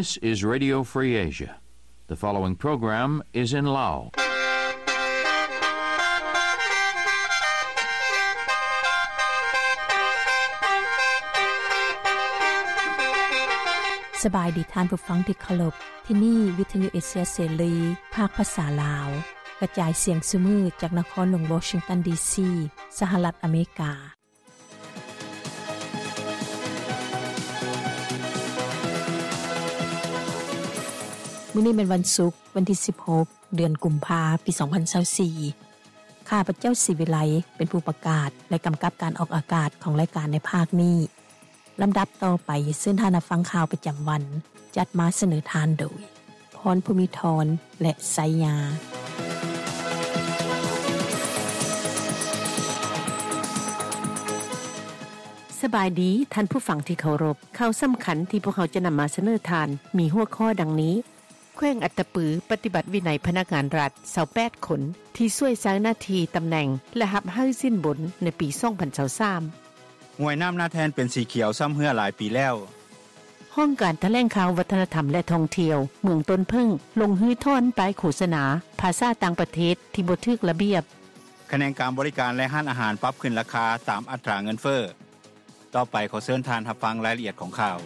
This is Radio Free Asia. The following program is in Lao. ສະບາຍດີທ່ານຜູ້ຟັງທີ່ເຄົາລົບ. ທີ່ນີ້ວິທະຍຸເອເຊຍເສລີ ພາກພາສາລາວ ກະຈາຍສຽງຊຸມື້ຈາກນະຄອນຫຼວງວໍຊິງຕັນ ດີຊີ ສະຫະລັດອາເມລິກາ. ມື້ນີ້ແມ່ນວັນສຸກ, ວັນທີສິບຫົກ ເດືອນກຸມພາ ປີສອງພັນຊາວສີ່. ຂ້າພະເຈົ້າ ສີວິໄລ ເປັນຜູ້ປະກາດ ແລະ ກຳກັບການອອກອາກາດຂອງລາຍການໃນພາກນີ້. ລຳດັບຕໍ່ໄປ, ເຊີນທ່ານຮັບຟັງຂ່າວປະຈຳວັນ, ຈັດມາສະເໜີທ່ານໂດຍ ພອນ ພູມີທອນ ແລະ ໄຊຍາ. ສະບາຍດີທ່ານຜູ້ຟັງທີ່ເຄົາລົບ. ຂ່າວສຳຄັນທີ່ພວກເຮົາຈະນຳມາສະເໜີທ່ານ ມີຫົວຂໍ້ດັ່ງນີ້: ແຂວງອັດຕະປືປະຕິບັດວິໄນພະນັກງານລັດຊາວແປດຄົນ ທີ່ຊ່ວຍໃຊ້ໜ້າທີ່ຕຳແໜ່ງ ແລະ ຮັບໃຫ້ສິນບົນໃນປີສອງພັນຊາວສາມ. ຫ້ວຍນ້ຳນາແທ່ນເປັນສີຂຽວຊ້ຳເຮື້ອຫຼາຍປີແລ້ວ. ຫ້ອງການຖະແຫຼງຂ່າວ ວັດທະນະທຳ ແລະ ທ່ອງທ່ຽວ ເມືອງຕົ້ນເຜິ້ງ ລົງຮື້ຖອນປ້າຍໂຄສະນາພາສາຕ່າງປະເທດທີ່ບໍ່ຖືກລະບຽບ. ຂະແໜງການບໍລິການ ແລະ ຮ້ານອາຫານປັບຂຶ້ນລາຄາຕາມອັດຕາເງິນເຟີ້. ຕໍ່ໄປຂໍເຊີນທ່ານຮັບຟັງລາຍລະອຽດຂອງຂ່າວ.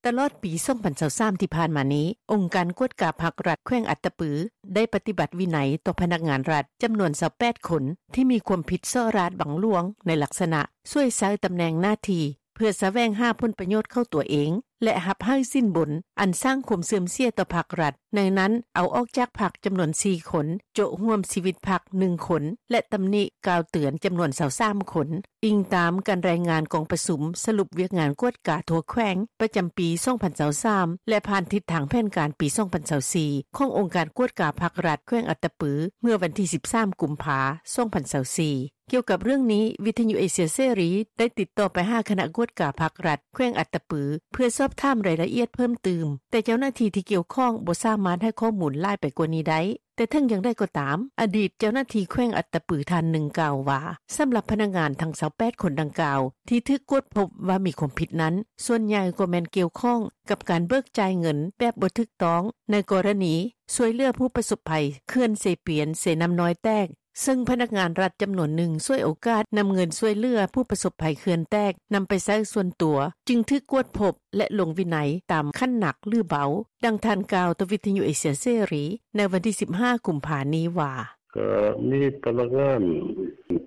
ຕະຫຼອດປີສອງພັນຊາວສາມທີ່ຜ່ານມານີ້, ອົງການກວດກາພັກລັດແຂວງອັດຕະປື ໄດ້ປະຕິບັດວິໄນຕໍ່ພະນັກງານລັດຈຳນວນຊາວແປດຄົນ ທີ່ມີຄວາມຜິດສໍ້ລາດບັງຫຼວງໃນລັກສະນະຊ່ວຍໃຊ້ຕຳແໜ່ງໜ້າທີ່ ເພື່ອສະແຫວງຫາຜົນປະໂຫຍດເຂົ້າຕົວເອງ ແລະ ຮັບໃຫ້ສິນບົນອັນສ້າງຄວາມເສື່ອມເສຍຕໍ່ພັກລັດ, ໃນນັ້ນເອົາອອກຈາກພັກຈຳນວນສີ່ຄົນ, ໂຈະຮ່ວມຊີວິດພັກໜຶ່ງຄົນ ແລະ ຕຳໜິກ່າວເຕືອນຈຳນວນຊາວສາມຄົນ, ອີງຕາມການລາຍງານກອງປະຊຸມສະຫຼຸບວຽກງານກວດກາທົ່ວແຂວງປະຈຳປີສອງພັນຊາວສາມ ແລະ ຜ່ານທິດທາງແຜນການປີສອງພັນຊາວສີ່ ຂອງອົງການກວດກາພັກລັດແຂວງອັດຕະປື ເມື່ອວັນທີສິບສາມ ກຸມພາ ສອງພັນຊາວສີ່. ກ່ຽວກັບເລື່ອງນີ້, ວິທະຍຸເອເຊຍເສລີໄດ້ຕິດຕໍ່ໄປຫາຄະນະກວດກາພັກລັດແຂວງອັດຕະປື ເພື່ອສອບຖາມລາຍລະອຽດເພີ່ມຕື່ມ, ແຕ່ເຈົ້າໜ້າທີ່ທີ່ກ່ຽວຂ້ອງບໍ່ສາມາດໃຫ້ຂໍ້ມູນຫຼາຍໄປກວ່ານີ້ໄດ້. ແຕ່ເຖິງຢ່າງໃດກໍຕາມ, ອະດີດເຈົ້າໜ້າທີ່ແຂວງອັດຕະປືທ່ານໜຶ່ງກ່າວວ່າ, ສຳລັບພະນັກງານທັງຊາວແປດຄົນດັ່ງກ່າວ ທີ່ຖືກກວດພົບວ່າມີຄວາມຜິດນັ້ນ, ສ່ວນໃຫຍ່ກໍແມ່ນກ່ຽວຂ້ອງກັບການເບີກຈ່າຍເງິນແບບບໍ່ຖືກຕ້ອງ ໃນກໍລະນີຊ່ວຍເຫຼືອຜູ້ປະສົບໄພເຂື່ອນເຊປຽນ-ເຊນ້ຳນ້ອຍແຕກ, ເຊິ່ງພະນັກງານລັດຈຳນວນໜຶ່ງສວຍໂອກາດນຳເງິນຊ່ວຍເຫຼືອຜູ້ປະສົບໄພເຂື່ອນແຕກນຳໄປໃຊ້ສ່ວນຕົວ, ຈຶ່ງຖືກກວດພົບ ແລະ ລົງວິໄນຕາມຂັ້ນໜັກ ຫຼື ເບົາ, ດັ່ງທ່ານກ່າວຕໍ່ວິທະຍຸເອເຊຍເສລີໃນວັນທີສິບຫ້າ ກຸມພານີ້ວ່າ: ກໍມີພະນັກງານ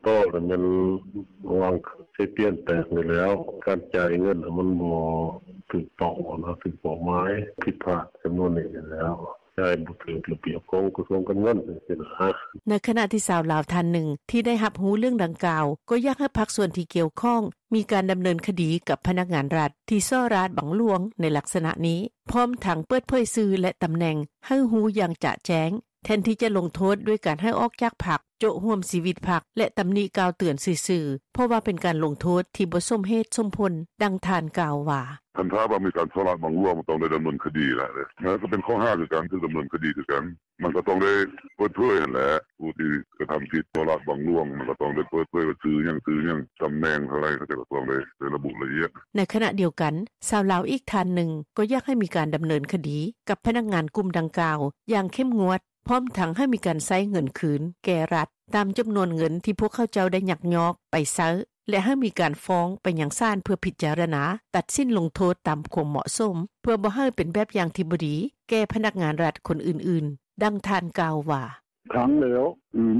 ຕໍ່ແລ້ວແມ່ນວາງເຊປຽນແຕກນີ້ແລ້ວ, ການຈ່າຍເງິນມັນບໍ່ຖືກຕ້ອງນະ, ຖືກເປົ້າໝາຍ, ຜິດພາດຈຳນວນນີ້ແລ້ວ. ຈ່າຍບໍ່ຖືກລະບຽບຂອງກະຊວງການເງິນຈັ່ງຊີ້ນະ. ໃນຂະນະທີ່ຊາວລາວທ່ານໜຶ່ງທີ່ໄດ້ຮັບຮູ້ເລື່ອງດັ່ງກ່າວ ກໍຢາກໃຫ້ພາກສ່ວນທີ່ກ່ຽວຂ້ອງມີການດຳເນີນຄະດີກັບພະນັກງານລັດທີ່ສໍ້ລາດບັງຫຼວງໃນລັກສະນະນີ້, ພ້ອມທັງເປີດເຜີຍຊື່ ແລະ ຕຳແໜ່ງໃຫ້ຮູ້ຢ່າງຈະແຈ້ງ, ແທນທີ່ຈະລົງໂທດດ້ວຍການໃຫ້ອອກຈາກພັກ, ໂຈະຮ່ວມຊີວິດພັກ ແລະ ຕຳໜິກ່າວເຕືອນຊື່ໆ, ເພາະວ່າເປັນການລົງໂທດທີ່ບໍ່ສົມເຫດສົມຜົນ, ດັ່ງທ່ານກ່າວວ່າ: ຄັນຖ້າວ່າມີການສໍ້ລາດບັງຫຼວງ ມັນຕ້ອງໄດ້ດຳເນີນຄະດີແຫຼະ, ແລ້ວກໍເປັນຂໍ້ຫາຄືກັນ, ຖືກດຳເນີນຄະດີຄືກັນ. ມັນກໍຕ້ອງໄດ້ເປີດເຜີຍຫັ້ນແຫຼະ, ຜູ້ທີ່ກະທຳຜິດສໍ້ລາດບັງຫຼວງ ມັນກໍຕ້ອງໄດ້ເປີດເຜີຍວ່າຊື່ຫຍັງ, ຊື່ຫຍັງ, ຕຳແໜ່ງເທົ່າໃດ, ເຂົາເຈົ້າກໍຕ້ອງໄດ້ ໄດ້ລະບຸລະອຽດ. ໃນຂະນະດຽວກັນ, ຊາວລາວອີກທ່ານໜຶ່ງກໍຢາກໃຫ້ມີການດຳເນີນຄະດີກັບພະນັກງານກຸ່ມດັ່ງກ່າວຢ່າງເຂັ້ມງວດ, ພ້ອມທັງໃຫ້ມີການໃຊ້ເງິນຄືນແກ່ລັດ ຕາມຈຳນວນເງິນທີ່ພວກເຂົາເຈົ້າໄດ້ຍັກຍອກໄປໃຊ້ ແລະ ໃຫ້ມີການຟ້ອງໄປຍັງສານເພື່ອພິຈາລະນາຕັດສິນລົງໂທດຕາມຄວາມເໝາະສົມ, ເພື່ອບໍ່ໃຫ້ເປັນແບບຢ່າງທີ່ບໍ່ດີແກ່ພະນັກງານລັດຄົນອື່ນໆ, ດັ່ງທ່ານກ່າວວ່າ: ຂັງແລ້ວ,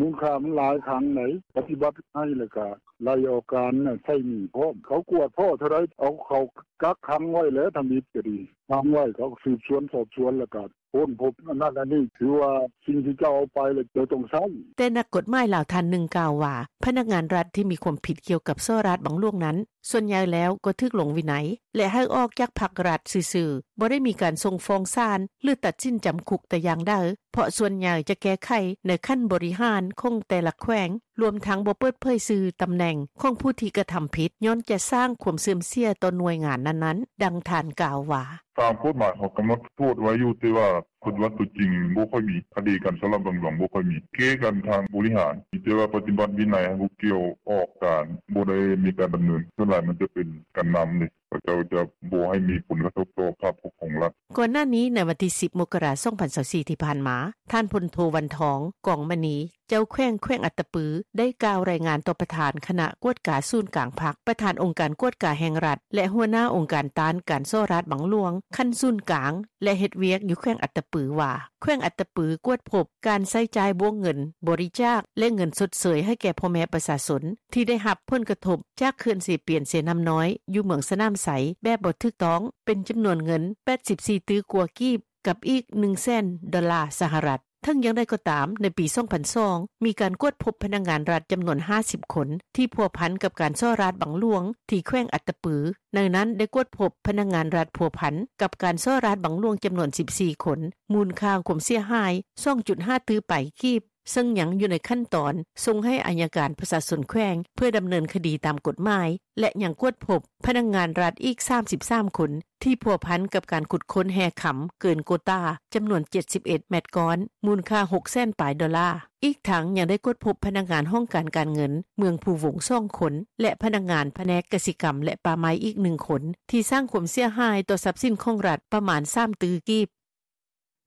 ມູນຄ່າມັນຫຼາຍ, ຂັງໃດ໋, ປະຕິບັດໃຫ້ແລ້ວກະໄລ່ອອກການ, ໃຊ້ໜີ້ພ້ອມ. ເຂົາກວດພໍ້ເທົ່າໃດ ເອົາເຂົ້າກັກຂັງໄວ້ແຫຼະ, ທຳອິດກໍດີ, ຂັງໄວ້, ເຂົາກໍສືບສວນສອບສວນ ແລ້ວກະ ຄົ້ນພົບອັນນັ້ນອັນນີ້, ຖືວ່າສິ່ງທີ່ເຈົ້າເອົາໄປແລ້ວເຈົ້າຕ້ອງໃຊ້. ແຕ່ນັກກົດໝາຍລາວທ່ານໜຶ່ງກ່າວວ່າ, ພະນັກງານລັດທີ່ມີຄວາມຜິດກ່ຽວກັບສໍ້ລາດບັງຫຼວງນັ້ນ, ສ່ວນໃຫຍ່ແລ້ວກໍຖືກລົງວິໄນ ແລະ ໃຫ້ອອກຈາກພັກລັດຊື່ໆ, ບໍ່ໄດ້ມີການສົ່ງຟ້ອງສານ ຫຼື ຕັດສິນຈຳຄຸກແຕ່ຢ່າງໃດ, ເພາະສ່ວນໃຫຍ່ຈະແກ້ໄຂໃນຂັ້ນບໍລິຫານຂອງແຕ່ລະແຂວງ, ລວມທັງບໍ່ເປີດເຜີຍຊື່, ຕຳແໜ່ງຂອງຜູ້ທີ່ກະທຳຜິດ, ຍ້ອນຈະສ້າງຄວາມເສື່ອມເສຍຕໍ່ໜ່ວຍງານນັ້ນໆ, ດັ່ງທ່ານກ່າວວ່າ: ຕາມກົດໝາຍເຂົາກຳນົດໂທດໄວ້ຢູ່ ແຕ່ວ່າປະຕິບັດໂຕຈິງບໍ່ຄ່ອຍມີ ຄະດີການສໍ້ລາດບັງຫຼວງບໍ່ຄ່ອຍມີ ແກ້ກັນທາງບໍລິຫານ ມີແຕ່ວ່າປະຕິບັດວິໄນໃຫ້ຜູ້ກ່ຽວອອກການ ບໍ່ໄດ້ມີການດຳເນີນ ສ່ວນຫຼາຍມັນຈະເປັນການນຳເດ ເຂົາເຈົ້າຈະບໍ່ໃຫ້ມີຜົນກະທົບຕໍ່ພາບພົດຂອງລັດ.” ກ່ອນໜ້ານີ້ ໃນວັນທີສິບ ມົກກະລາ ສອງພັນຊາວສີ່ ທີ່ຜ່ານມາ ທ່ານ ພົນໂທ ວັນທອງ ກອງມະນີ ເຈົ້າແຂວງແຂວງອັດຕະປື ໄດ້ກ່າວລາຍງານຕໍ່ປະທານຄະນະກວດກາສູນກາງພັກ, ປະທານອົງການກວດກາແຫ່ງລັດ ແລະ ຫົວໜ້າອົງການຕ້ານການສໍ້ລາດບັງຫຼວງຂັ້ນສູນກາງ ແລະ ເຮັດວຽກຢູ່ແຂວງອັດຕະປືວ່າ ແຂວງອັດຕະປືກວດພົບການໃຊ້ຈ່າຍບ້ວງເງິນບໍລິຈາກ ແລະ ເງິນຊົດເຊີຍໃຫ້ແກ່ພໍ່ແມ່ປະຊາຊົນ ທີ່ໄດ້ຮັບຜົນກະທົບຈາກເຂື່ອນເຊປຽນ-ເຊນ້ຳນ້ອຍ ຢູ່ເມືອງສະໜາມໄຊ ແບບບໍ່ຖືກຕ້ອງ ເປັນຈຳນວນເງິນ ແປດສິບສີ່ຕື້ກວ່າກີບ ກັບອີກ ໜຶ່ງແສນ ດອນລາສະຫະລັດ. ເຖິງຢ່າງໃດກໍຕາມ, ໃນປີ ສອງພັນສອງ ມີການກວດພົບພະນັກງານລັດຈຳນວນ ຫ້າສິບຄົນ ທີ່ພົວພັນກັບການສໍ້ລາດບັງຫຼວງທີ່ແຂວງອັດຕະປື, ໃນນັ້ນໄດ້ກວດພົບພະນັກງານລັດພົວພັນກັບການສໍ້ລາດບັງຫຼວງຈຳນວນ ສິບສີ່ຄົນ, ມູນຄ່າຄວາມເສຍຫາຍ ສອງຈຸດຫ້າຕື້ປາຍກີບ, ເຊິ່ງຍັງຢູ່ໃນຂັ້ນຕອນສົ່ງໃຫ້ອັຍການປະຊາຊົນແຂວງ ເພື່ອດຳເນີນຄະດີຕາມກົດໝາຍ ແລະ ຍັງກວດພົບພະນັກງານລັດອີກ ສາມສິບສາມຄົນ ທີ່ພົວພັນກັບການຂຸດຄົ້ນແຮ່ຄຳເກີນໂກຕາຈຳນວນ ເຈັດສິບເອັດແມັດກ້ອນ ມູນຄ່າ ຫົກແສນປາຍດອນລາ. ອີກທັງຍັງໄດ້ກວດພົບພະນັກງານຫ້ອງການການເງິນເມືອງພູວົງ ສອງຄົນ ແລະ ພະນັກງານພະແນກກະສິກຳ ແລະ ປ່າໄມ້ອີກ ໜຶ່ງຄົນ ທີ່ສ້າງຄວາມເສຍຫາຍຕໍ່ຊັບສິນຂອງລັດປະມານ ສາມຕື້ກີບ.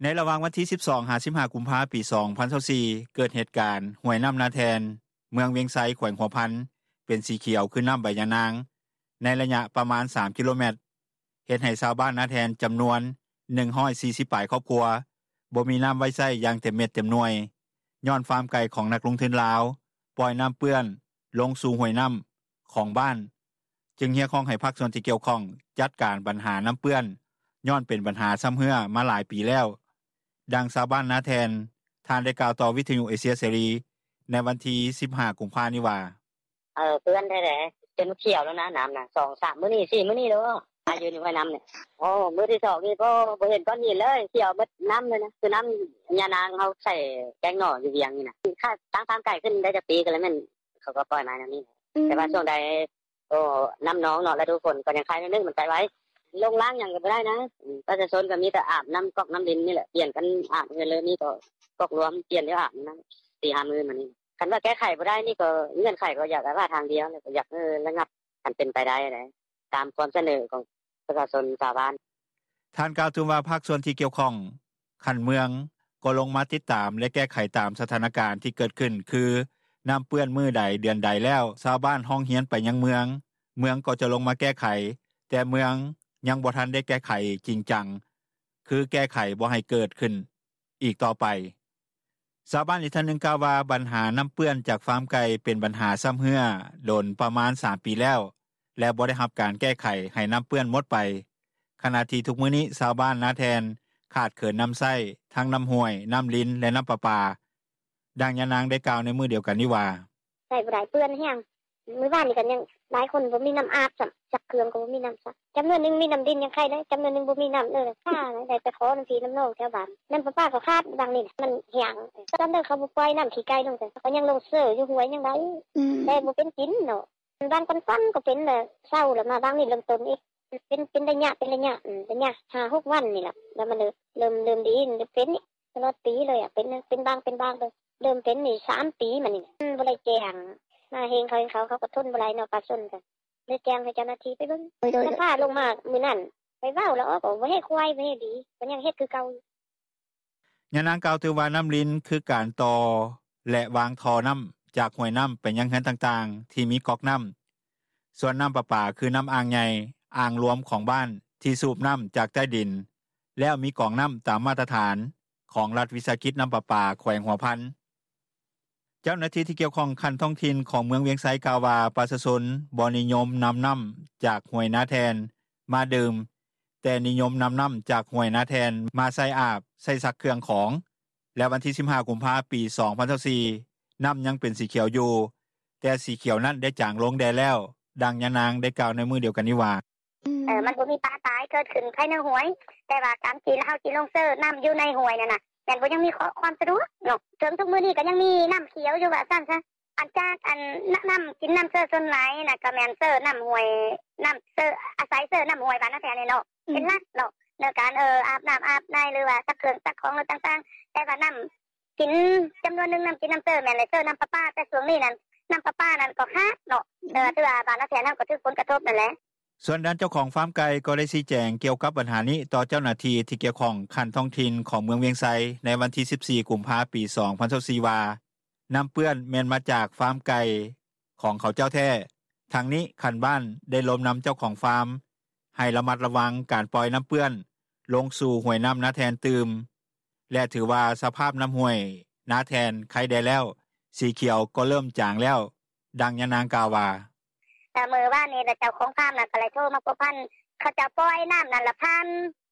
ໃນລະຫວ່າງວັນທີ ສິບສອງ ຫາ ສິບຫ້າ ກຸມພາ ປີ ສອງພັນຊາວສີ່ ເກີດເຫດການຫ້ວຍນ້ຳນາແທ່ນ ເມືອງວຽງໄຊ ແຂວງຫົວພັນ ເປັນສີຂຽວຄືນ້ຳໃບຍານາງ ໃນໄລຍະປະມານ ສາມກິໂລແມັດ ເຮັດໃຫ້ຊາວບ້ານນາແທ່ນຈຳນວນ ໜຶ່ງຮ້ອຍສີ່ສິບປາຍຄອບຄົວ ບໍ່ມີນ້ຳໄວ້ໃຊ້ຢ່າງເຕັມເມັດເຕັມໜ່ວຍ ຍ້ອນຟາມໄກ່ຂອງນັກລົງທຶນລາວປ່ອຍນ້ຳເປື້ອນລົງສູ່ຫ້ວຍນ້ຳຂອງບ້ານ ຈຶ່ງຮຽກຮ້ອງໃຫ້ພາກສ່ວນທີ່ກ່ຽວຂ້ອງຈັດການບັນຫານ້ຳເປື້ອນ ຍ້ອນເປັນບັນຫາຊຳເຮື້ອມາຫຼາຍປີແລ້ວ. ດັ່ງຊາວບ້ານນາແທ່ນ ທ່ານໄດ້ກ່າວຕໍ່ວິທະຍຸເອເຊຍເສລີ ໃນວັນທີ ສິບຫ້າ ກຸມພານີ້ວ່າ: ເອີ ເປື້ອນແທ້ໆ ຈົນຂຽວແລ້ວນະ ນ້ຳນະ ສອງສາມມື້ນີ້ ສີ່ມື້ນີ້ແລ້ວ ອາ ຢູ່ໃນຫ້ວຍນ້ຳນີ້. ໂອ້ ມື້ທີສອງນີ້ ໂອ້ ບໍ່ເຫັນກ້ອນຫີນເລີຍ ຂຽວເບິດນ້ຳເລີຍນະ ຄືນ້ຳຍານາງເຮົາໃສ່ແກງໜໍ່ຢູ່ວຽງນີ້ນະ. ຕັ້ງຟາມໄກ່ຂຶ້ນໄດ້ຈັກປີກໍແລ້ວ ແມ່ນເຂົາກໍປ່ອຍມາແນວນີ້. ແຕ່ວ່າຊ່ວງໃດ ໂອ້ ນ້ຳນອງເນາະ ລະດູຝົນກໍຍັງໄຄໜ້ອຍໜຶ່ງ ມັນໄຄໄວ ລົງລ້າງຫຍັງກໍບໍ່ໄດ້ນະ. ປະຊາຊົນກໍມີແຕ່ອາບນ້ຳກອກນ້ຳລິນນີ້ແຫຼະ ປ່ຽນກັນອາບເຮືອນເລີຍ ມີກໍກອກລວມປ່ຽນແລ້ວອາບນະ ສີ່ຫ້າມື້ມານີ້. ຄັນວ່າແກ້ໄຂບໍ່ໄດ້ນີ້ ກໍເງື່ອນໄຂກໍຢາກວ່າທາງດຽວ ກໍຢາກໃຫ້ລະງັບ ຄັນເປັນໄປໄດ້ ຕາມຄວາມສະເໜີຂອງປະຊາຊົນຊາວບ້ານ. ທ່ານກ່າວຕື່ມວ່າ ພາກສ່ວນທີ່ກ່ຽວຂ້ອງຂັ້ນເມືອງ ກໍລົງມາຕິດຕາມ ແລະ ແກ້ໄຂຕາມສະຖານະການທີ່ເກີດຂຶ້ນ ຄື ນ້ຳເປື້ອນມື້ໃດເດືອນໃດແລ້ວ ຊາວບ້ານຮ້ອງຮຽນໄປຍັງເມືອງ ເມືອງກໍຈະລົງມາແກ້ໄຂ ແຕ່ເມືອງຍັງບໍ່ທັນໄດ້ແກ້ໄຂຈິງຈັງ ຄືແກ້ໄຂບໍ່ໃຫ້ເກີດຂຶ້ນອີກຕໍ່ໄປ. ຊາວບ້ານອີກທ່ານໜຶ່ງກ່າວວ່າ ບັນຫານ້ຳເປື້ອນຈາກຟາມໄກ່ເປັນບັນຫາຊຳເຮື້ອດົນປະມານ ສາມປີແລ້ວ ແລະ ບໍ່ໄດ້ຮັບການແກ້ໄຂໃຫ້ນ້ຳເປື້ອນໝົດໄປ ຂະນະທີ່ທຸກມື້ນີ້ຊາວບ້ານນາແທ່ນຂາດເຂີນນ້ຳໃຊ້ ທັງນ້ຳຫ້ວຍ, ນ້ຳລິນ ແລະ ນ້ຳປະປາ. ດັ່ງຍານາງໄດ້ກ່າວໃນມື້ດຽວກັນນີ້ວ່າ: ໃຊ້ບໍ່ໄດ້ ເປື້ອນແຮງ ມື້ວານນີ້ກໍຍັງຫຼາຍຄົນບໍ່ມີນ້ຳອາບຊ້ຳ ຊັກເຄື່ອງກໍບໍ່ມີນ້ຳຊັກ ຈຳນວນໜຶ່ງມີນ້ຳລິນຍັງໄຄແດ່ ຈຳນວນໜຶ່ງບໍ່ມີນ້ຳເລີຍ ໄດ້ໄປຂໍນຳພີ່ນຳນ້ອງແຖວບ້ານ ນ້ຳປະປາກໍຂາດ ບາງນີ້ນະ ມັນແຫ້ງ ຕອນໃດເຂົາບໍ່ປ່ອຍນ້ຳຂີ້ໄກ່ລົງ ກໍຍັງລົງເຊີຢູ່ຫ້ວຍຍັງໄດ້ ແຕ່ບໍ່ເປັນກິນເນາະ. ບາງກ່ອນໆກໍເປັນແລ້ວ ເຊົາແລ້ວ ມາບາງນີ້ເລີ່ມຕົ້ນອີກ ເປັນ ເປັນໄລຍະ ເປັນໄລຍະ ໄລຍະຫ້າຫົກວັນນີ້ລະ ແລ້ວມັນເລີ່ມ ເລີ່ມດີ ເປັນນີ້ຕະຫຼອດປີເລີຍ ເປັນ ເປັນບາງ ເປັນບາງ ເລີ່ມເປັນນີ້ສາມປີມານີ້ ບໍ່ໄດ້ແຈ້ງ ມາເຫັນເຂົາ ເຂົາກໍທົນບໍ່ໄດ້ເນາະ ປະຊາຊົນກໍເລີຍແຈ້ງໃຫ້ເຈົ້າໜ້າທີ່ໄປເບິ່ງ ສະພາລົງມາມື້ນັ້ນ ໄປເວົ້າແລ້ວ ບໍ່ເຮັດຄວາຍ ບໍ່ເຮັດດີ ກໍຍັງເຮັດຄືເກົ່າ. ຍານາງກ່າວຕື່ມວ່າ ນ້ຳລິນຄືການຕໍ່ ແລະ ວາງທໍ່ນ້ຳຈາກຫ້ວຍນ້ຳໄປຍັງເຮືອນຕ່າງໆ ທີ່ມີກອກນ້ຳ, ສ່ວນນ້ຳປະປາຄືນ້ຳອ່າງໃຫຍ່, ອ່າງລວມຂອງບ້ານ ທີ່ສູບນ້ຳຈາກໃຕ້ດິນ ແລ້ວມີກອງນ້ຳຕາມມາດຕະຖານຂອງລັດວິສາຫະກິດນ້ຳປະປາແຂວງຫົວພັນ. ເຈົ້າໜ້າທີ່ທີ່ກ່ຽວຂ້ອງຂັ້ນທ້ອງຖິ່ນຂອງເມືອງວຽງໄຊກ່າວວ່າ ປະຊາຊົນບໍ່ນິຍົມນຳນ້ຳຈາກຫ້ວຍນາແທ່ນມາດື່ມ ແຕ່ນິຍົມນຳນ້ຳຈາກຫ້ວຍນາແທ່ນມາໃຊ້ອາບ, ໃຊ້ຊັກເຄື່ອງຂອງ ແລະ ວັນທີສິບຫ້າ ກຸມພາ ປີສອງພັນຊາວສີ່ ນ້ຳຍັງເປັນສີຂຽວຢູ່ ແຕ່ສີຂຽວນັ້ນໄດ້ຈາງລົງແດ່ແລ້ວ. ດັ່ງຍານາງໄດ້ກ່າວໃນມື້ດຽວກັນນີ້ວ່າ: ເອີ ມັນບໍ່ມີປາຕາຍເກີດຂຶ້ນພາຍໃນຫ້ວຍ ແຕ່ວ່າການທີ່ເຮົາຊິລົງເຊີນ້ຳຢູ່ໃນຫ້ວຍນັ້ນນະ ແມ່ນບໍ່ຍັງມີຄວາມສະດວກເນາະ ເຖິງທຸກມື້ນີ້ກໍຍັງມີນ້ຳຂຽວຢູ່ວ່າຊັ້ນຊະ ອັນຈາກອັນ ນ້ຳ ນ້ຳກິນນ້ຳເຊີສ່ວນຫຼາຍນະ ກໍແມ່ນເຊີນ້ຳຫ້ວຍ ນ້ຳເຊີ ອາໄສເຊີນ້ຳຫ້ວຍບ້ານນາແທ່ນນີ້ເນາະ ເປັນຫຼັກເນາະ ໃນການອາບນໍ້າອາບໃນ ຫຼືວ່າຊັກເຄື່ອງຊັກຂອງ ຫຼືຕ່າງໆ ແຕ່ວ່ານໍ້າກິນຈຳນວນໜຶ່ງ ນໍ້າກິນນໍ້າເຊີແມ່ນແຫຼະ ເຊີນໍ້າປະປາ ແຕ່ຊ່ວງນີ້ນັ້ນ ນໍ້າປະປານັ້ນກໍຂາດເນາະ ຖືວ່າບ້ານນາແທ່ນເຮົາກໍຖືກຜົນກະທົບນັ້ນແຫຼະ.” ສ່ວນດ້ານເຈົ້າຂອງຟາມໄກ່ ກໍໄດ້ຊີ້ແຈງກ່ຽວກັບບັນຫານີ້ ຕໍ່ເຈົ້າໜ້າທີ່ທີ່ກ່ຽວຂ້ອງຂັ້ນທ້ອງຖິ່ນ ຂອງເມືອງວຽງໄຊ ໃນວັນທີ ສິບສີ່ ກຸມພາ 2024 ວ່າ ນໍ້າເປື້ອນແມ່ນມາຈາກຟາມໄກ່ ຂອງເຂົາເຈົ້າແທ້. ທັງນີ້ ຂັ້ນບ້ານໄດ້ລົມນຳເຈົ້າຂອງຟາມ ໃຫ້ລະມັດລະວັງການປ່ອຍນໍ້າເປື້ອນ ລົງສູ່ຫ້ວຍນໍ້ານາແທ່ນຕື່ມ ແລະ ຖືວ່າສະພາບນໍ້າຫ້ວຍນາແທ່ນໄຄແດ່ແລ້ວ ສີຂຽວກໍເລີ່ມຈາງແລ້ວ. ດັ່ງຍານາງກ່າວວ່າ: “ມື້ວານນີ້ເຈົ້າຂອງຟາມນັ້ນ ກໍໄດ້ໂທມາພົວພັນ ເຂົາເຈົ້າປ່ອຍນໍ້ານັ້ນລະ ຜ່ານ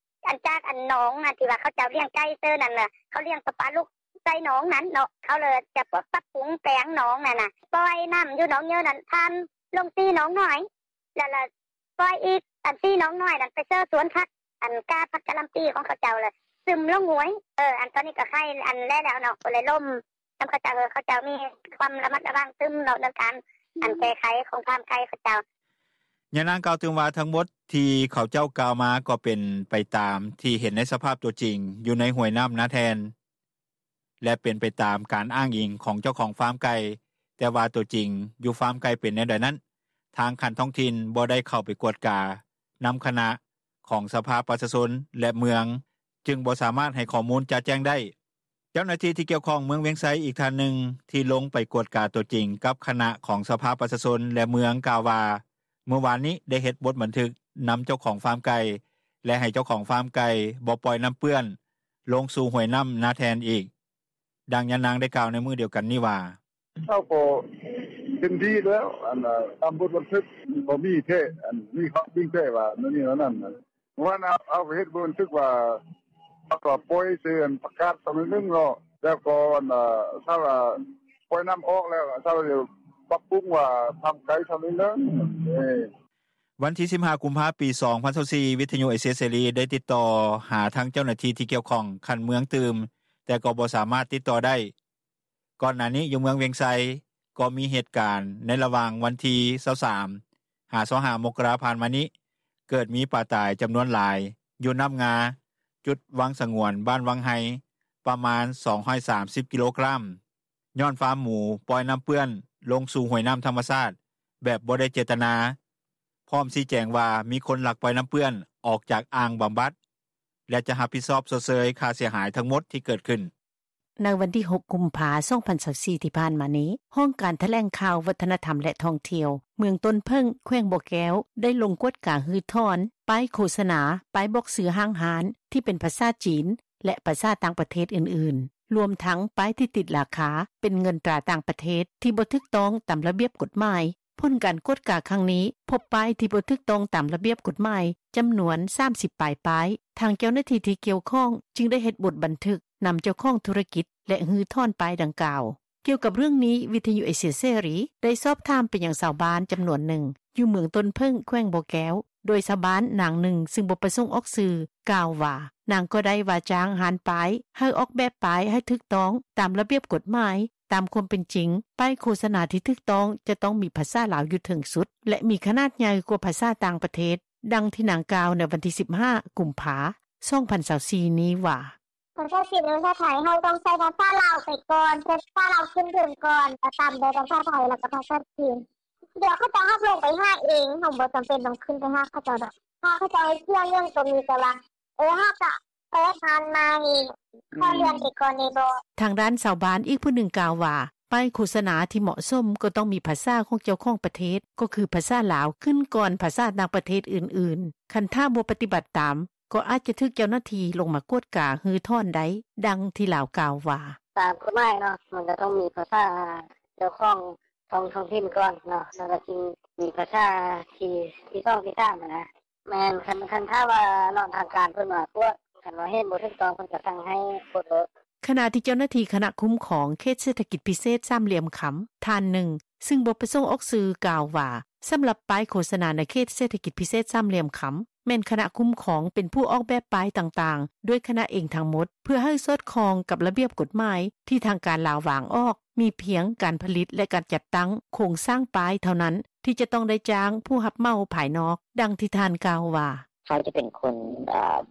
ຈາກໜອງທີ່ວ່າ ເຂົາເຈົ້າລ້ຽງໄກ່ເຊີນັ້ນ ເຂົາລ້ຽງປະປາລູກໃສ່ໜອງນັ້ນເນາະ ເຂົາເລີຍຈະປັບປຸງແປງໜອງນັ້ນນ່າ ປ່ອຍນໍ້າຢູ່ໜອງເຍີນັ້ນ ຜ່ານລົງສີ່ໜອງນ້ອຍ ແລ້ວປ່ອຍອີກສີ່ໜອງນ້ອຍນັ້ນ ໄປເຊີສວນຜັກ ກາຜັກກະຫຼ່ຳປີຂອງເຂົາເຈົ້າ ແລ້ວຊຶມລົງຫ້ວຍ. ຕອນນີ້ກໍໄຄແດ່ແລ້ວເນາະ ກໍເລີຍລົມນຳເຂົາເຈົ້າ ເຂົາເຈົ້າມີຄວາມລະມັດລະວັງຕື່ມເນາະ ເລື່ອງການແກ້ໄຂຂອງຟາມໄກ່ເຂົາເຈົ້າ.” ຍານາງກ່າວຕື່ມວ່າ ທັງໝົດທີ່ເຂົາເຈົ້າກ່າວມາ ກໍເປັນໄປຕາມທີ່ເຫັນໃນສະພາບຕົວຈິງ ຢູ່ໃນຫ້ວຍນໍ້ານາແທ່ນ ແລະ ເປັນໄປຕາມການອ້າງອີງຂອງເຈົ້າຂອງຟາມໄກ່ ແຕ່ວ່າຕົວຈິງຢູ່ຟາມໄກ່ເປັນແນວໃດນັ້ນ ທາງຂັ້ນທ້ອງຖິ່ນບໍ່ໄດ້ເຂົ້າໄປກວດການຳຄະນະຂອງສະພາປະຊາຊົນ ແລະ ເມືອງ ຈຶ່ງບໍ່ສາມາດໃຫ້ຂໍ້ມູນຈະແຈ້ງໄດ້. ເຈົ້າໜ້າທີ່ທີ່ກ່ຽວຂ້ອງເມືອງວຽງໄຊ ອີກທ່ານໜຶ່ງ ທີ່ລົງໄປກວດກາຕົວຈິງກັບຄະນະຂອງສະພາປະຊາຊົນ ແລະ ເມືອງ ກ່າວວ່າ ມື້ວານນີ້ໄດ້ເຮັດບົດບັນທຶກນຳເຈົ້າຂອງຟາມໄກ່ ແລະ ໃຫ້ເຈົ້າຂອງຟາມໄກ່ບໍ່ປ່ອຍນໍ້າເປື້ອນລົງສູ່ຫ້ວຍນໍ້ານາແທ່ນອີກ. ດັ່ງຍານາງໄດ້ກ່າວໃນມື້ດຽວກັນນີ້ວ່າ: “ເຮົາກໍເຫັນດີແລ້ວ ຕາມບົດບັນທຶກ ກໍມີແທ້ ມີຄວາມຈິງແທ້ວ່າແນວນີ້ແນວນັ້ນ ເມື່ອວານເຮົາເຮັດບົດບັນທຶກວ່າ ເຮົາກໍປ່ອຍເຊີປະກາດຊຳໜຶ່ງເນາະ ແລ້ວກໍຖ້າວ່າປ່ອຍນໍ້າອອກແລ້ວ ເຮົາຈະປັບປຸງວ່າທາງໄກຊຳໜຶ່ງ.” ວັນທີ ສິບຫ້າ ກຸມພາ 2024 ວິທຍຸເອເຊຍເສລີ ໄດ້ຕິດຕໍ່ຫາທາງເຈົ້າໜ້າທີ່ທີ່ກ່ຽວຂ້ອງຂັ້ນເມືອງຕື່ມ ແຕ່ກໍບໍ່ສາມາດຕິດຕໍ່ໄດ້. ກ່ອນໜ້ານີ້ ຢູ່ເມືອງວຽງໄຊ ກໍມີເຫດການໃນລະຫວ່າງວັນທີ 23 ຫາ 25 ມົກກະລາ ຜ່ານມານີ້ ເກີດມີປາຕາຍຈຳນວນຫຼາຍ ຢູ່ນໍ້າງາ ຈຸດວັງສະຫງວນ ບ້ານວັງໄຮ ປະມານ 230 ກິໂລກຣາມ ຍ້ອນຟາມໝູປ່ອຍນໍ້າເປື້ອນລົງສູ່ຫ້ວຍນໍ້າທຳມະຊາດ ແບບບໍ່ໄດ້ເຈດຕະນາ ພ້ອມຊີ້ແຈງວ່າ ມີຄົນລັກປ່ອຍນໍ້າເປື້ອນອອກຈາກອ່າງບຳບັດ ແລະ ຈະຮັບຜິດຊອບຊົດເຊີຍຄ່າເສຍຫາຍທັງໝົດທີ່ເກີດຂຶ້ນ. ໃນວັນທີ 6 ກຸມພາ 2024 ທີ່ຜ່ານມານີ້ ຫ້ອງການຖະແຫຼງຂ່າວ ວັດທະນະທຳ ແລະ ທ່ອງທ່ຽວ ເມືອງຕົ້ນເຜິ້ງ ແຂວງບໍ່ແກ້ວ ໄດ້ລົງກວດກາຮື້ຖອນປ້າຍໂຄສະນາ, ປ້າຍບອກຊື່ຫ້າງຮ້ານ ທີ່ເປັນພາສາຈີນ ແລະ ພາສາຕ່າງປະເທດອື່ນໆ ລວມທັງປ້າຍທີ່ຕິດລາຄາເປັນເງິນຕາຕ່າງປະເທດ ທີ່ບໍ່ຖືກຕ້ອງຕາມລະບຽບກົດໝາຍ. ຜົນການກວດກາຄັ້ງນີ້ ພົບປ້າຍທີ່ບໍ່ຖືກຕ້ອງຕາມລະບຽບກົດໝາຍ ຈຳນວນ 30 ປາຍປ້າຍ. ທາງເຈົ້າໜ້າທີ່ທີ່ກ່ຽວຂ້ອງ ຈຶ່ງໄດ້ເຮັດບົດບັນທຶກນຳເຈົ້າຂອງທຸລະກິດ ແລະ ຮື້ຖອນປ້າຍດັ່ງກ່າວ. ກ່ຽວກັບເລື່ອງນີ້ ວິທຍຸເອເຊຍເສລີ ໄດ້ສອບຖາມໄປຍັງຊາວບ້ານຈຳນວນໜຶ່ງ ຢູ່ເມືອງຕົ້ນເຜິ້ງ ແຂວງບໍ່ແກ້ວ ໂດຍຊາວບ້ານນາງໜຶ່ງ ຊຶ່ງບໍ່ປະສົງອອກຊື່ ກ່າວວ່າ ນາງກໍໄດ້ວ່າຈ້າງຮ້ານປ້າຍ ໃຫ້ອອກແບບປ້າຍໃຫ້ຖືກຕ້ອງຕາມລະບຽບກົດໝາຍ. ຕາມຄວາມເປັນຈິງ ປ້າຍໂຄສະນາທີ່ຖືກຕ້ອງ ຈະຕ້ອງມີພາສາລາວຢູ່ເທິງສຸດ ແລະ ມີຂະໜາດໃຫຍ່ກວ່າພາສາຕ່າງປະເທດ. ດັ່ງທີ່ນາງກ່າວໃນວັນທີ 15 ກຸມພາ 2024 ນີ້ວ່າ: “ພາສາຈີນ ພາສາໄທ ເຮົາຕ້ອງໃຊ້ພາສາລາວໄປກ່ອນ ພາສາລາວຂຶ້ນເທິງກ່ອນ ແລ້ວຕາມດ້ວຍພາສາໄທ ແລ້ວກໍພາສາຈີນ. ດຽວເຂົາເຈົ້າຮັບລົງໄປຫາເອງ ເຮົາບໍ່ຈຳເປັນຕ້ອງຂຶ້ນໄປຫາເຂົາເຈົ້າດອກ ຖ້າເຂົາເຈົ້າໃຫ້ເຊື່ອງເລື່ອງໂຕນີ້ ແຕ່ວ່າ ເອີ ເຮົາກະເປີດຮ້ານໃໝ່ ຂໍເລື່ອນໄປກ່ອນໄດ້ບໍ່.” ທາງດ້ານຊາວບ້ານອີກຜູ້ໜຶ່ງກ່າວວ່າ ປ້າຍໂຄສະນາທີ່ເໝາະສົມ ກໍຕ້ອງມີພາສາຂອງເຈົ້າຂອງປະເທດ ກໍຄືພາສາລາວ ຂຶ້ນກ່ອນພາສາຕ່າງປະເທດອື່ນໆ. ຄັນຖ້າບໍ່ປະຕິບັດຕາມ ກໍອາດຈະຖືກເຈົ້າໜ້າທີ່ລົງມາກວດກາຮື້ຖອນໄດ້. ດັ່ງທີ່ລາວກ່າວວ່າ: “ຕາມກົດໝາຍເນາະ ມັນກໍຕ້ອງມີພາສາເຈົ້າຂອງທ້ອງຖິ່ນກ່ອນເນາະ ແລ້ວກໍຈຶ່ງມີພາສາທີສອງ ທີສາມຫັ້ນນະ. ແມ່ນ ຄັນຖ້າວ່າທາງການເພິ່ນມາກວດ ຄັນວ່າເຫັນບໍ່ຖືກຕ້ອງ ເພິ່ນກໍສັ່ງໃຫ້ປົດໂລດ.” ຂະນະທີ່ເຈົ້າໜ້າທີ່ຄະນະຄຸ້ມຄອງເຂດເສດຖະກິດພິເສດສາມຫຼ່ຽມຄຳ ທ່ານໜຶ່ງ ຊຶ່ງບໍ່ປະສົງອອກຊື່ ກ່າວວ່າ ສຳລັບປ້າຍໂຄສະນາໃນເຂດເສດຖະກິດພິເສດສາມຫຼ່ຽມຄຳ ແມ່ນຄະນະຄຸ້ມຄອງເປັນຜູ້ອອກແບບປ້າຍຕ່າງໆ ດ້ວຍຄະນະເອງທັງໝົດ ເພື່ອໃຫ້ສອດຄ່ອງກັບລະບຽບກົດໝາຍທີ່ທາງການລາວວາງອອກ. ມີພຽງການຜະລິດ ແລະ ການຈັດຕັ້ງໂຄງສ້າງປ້າຍເທົ່ານັ້ນ ທີ່ຈະຕ້ອງໄດ້ຈ້າງຜູ້ຮັບເໝົາພາຍນອກ. ດັ່ງທີ່ທ່ານກ່າວວ່າ: ເຮົາຈະເປັນຄົນ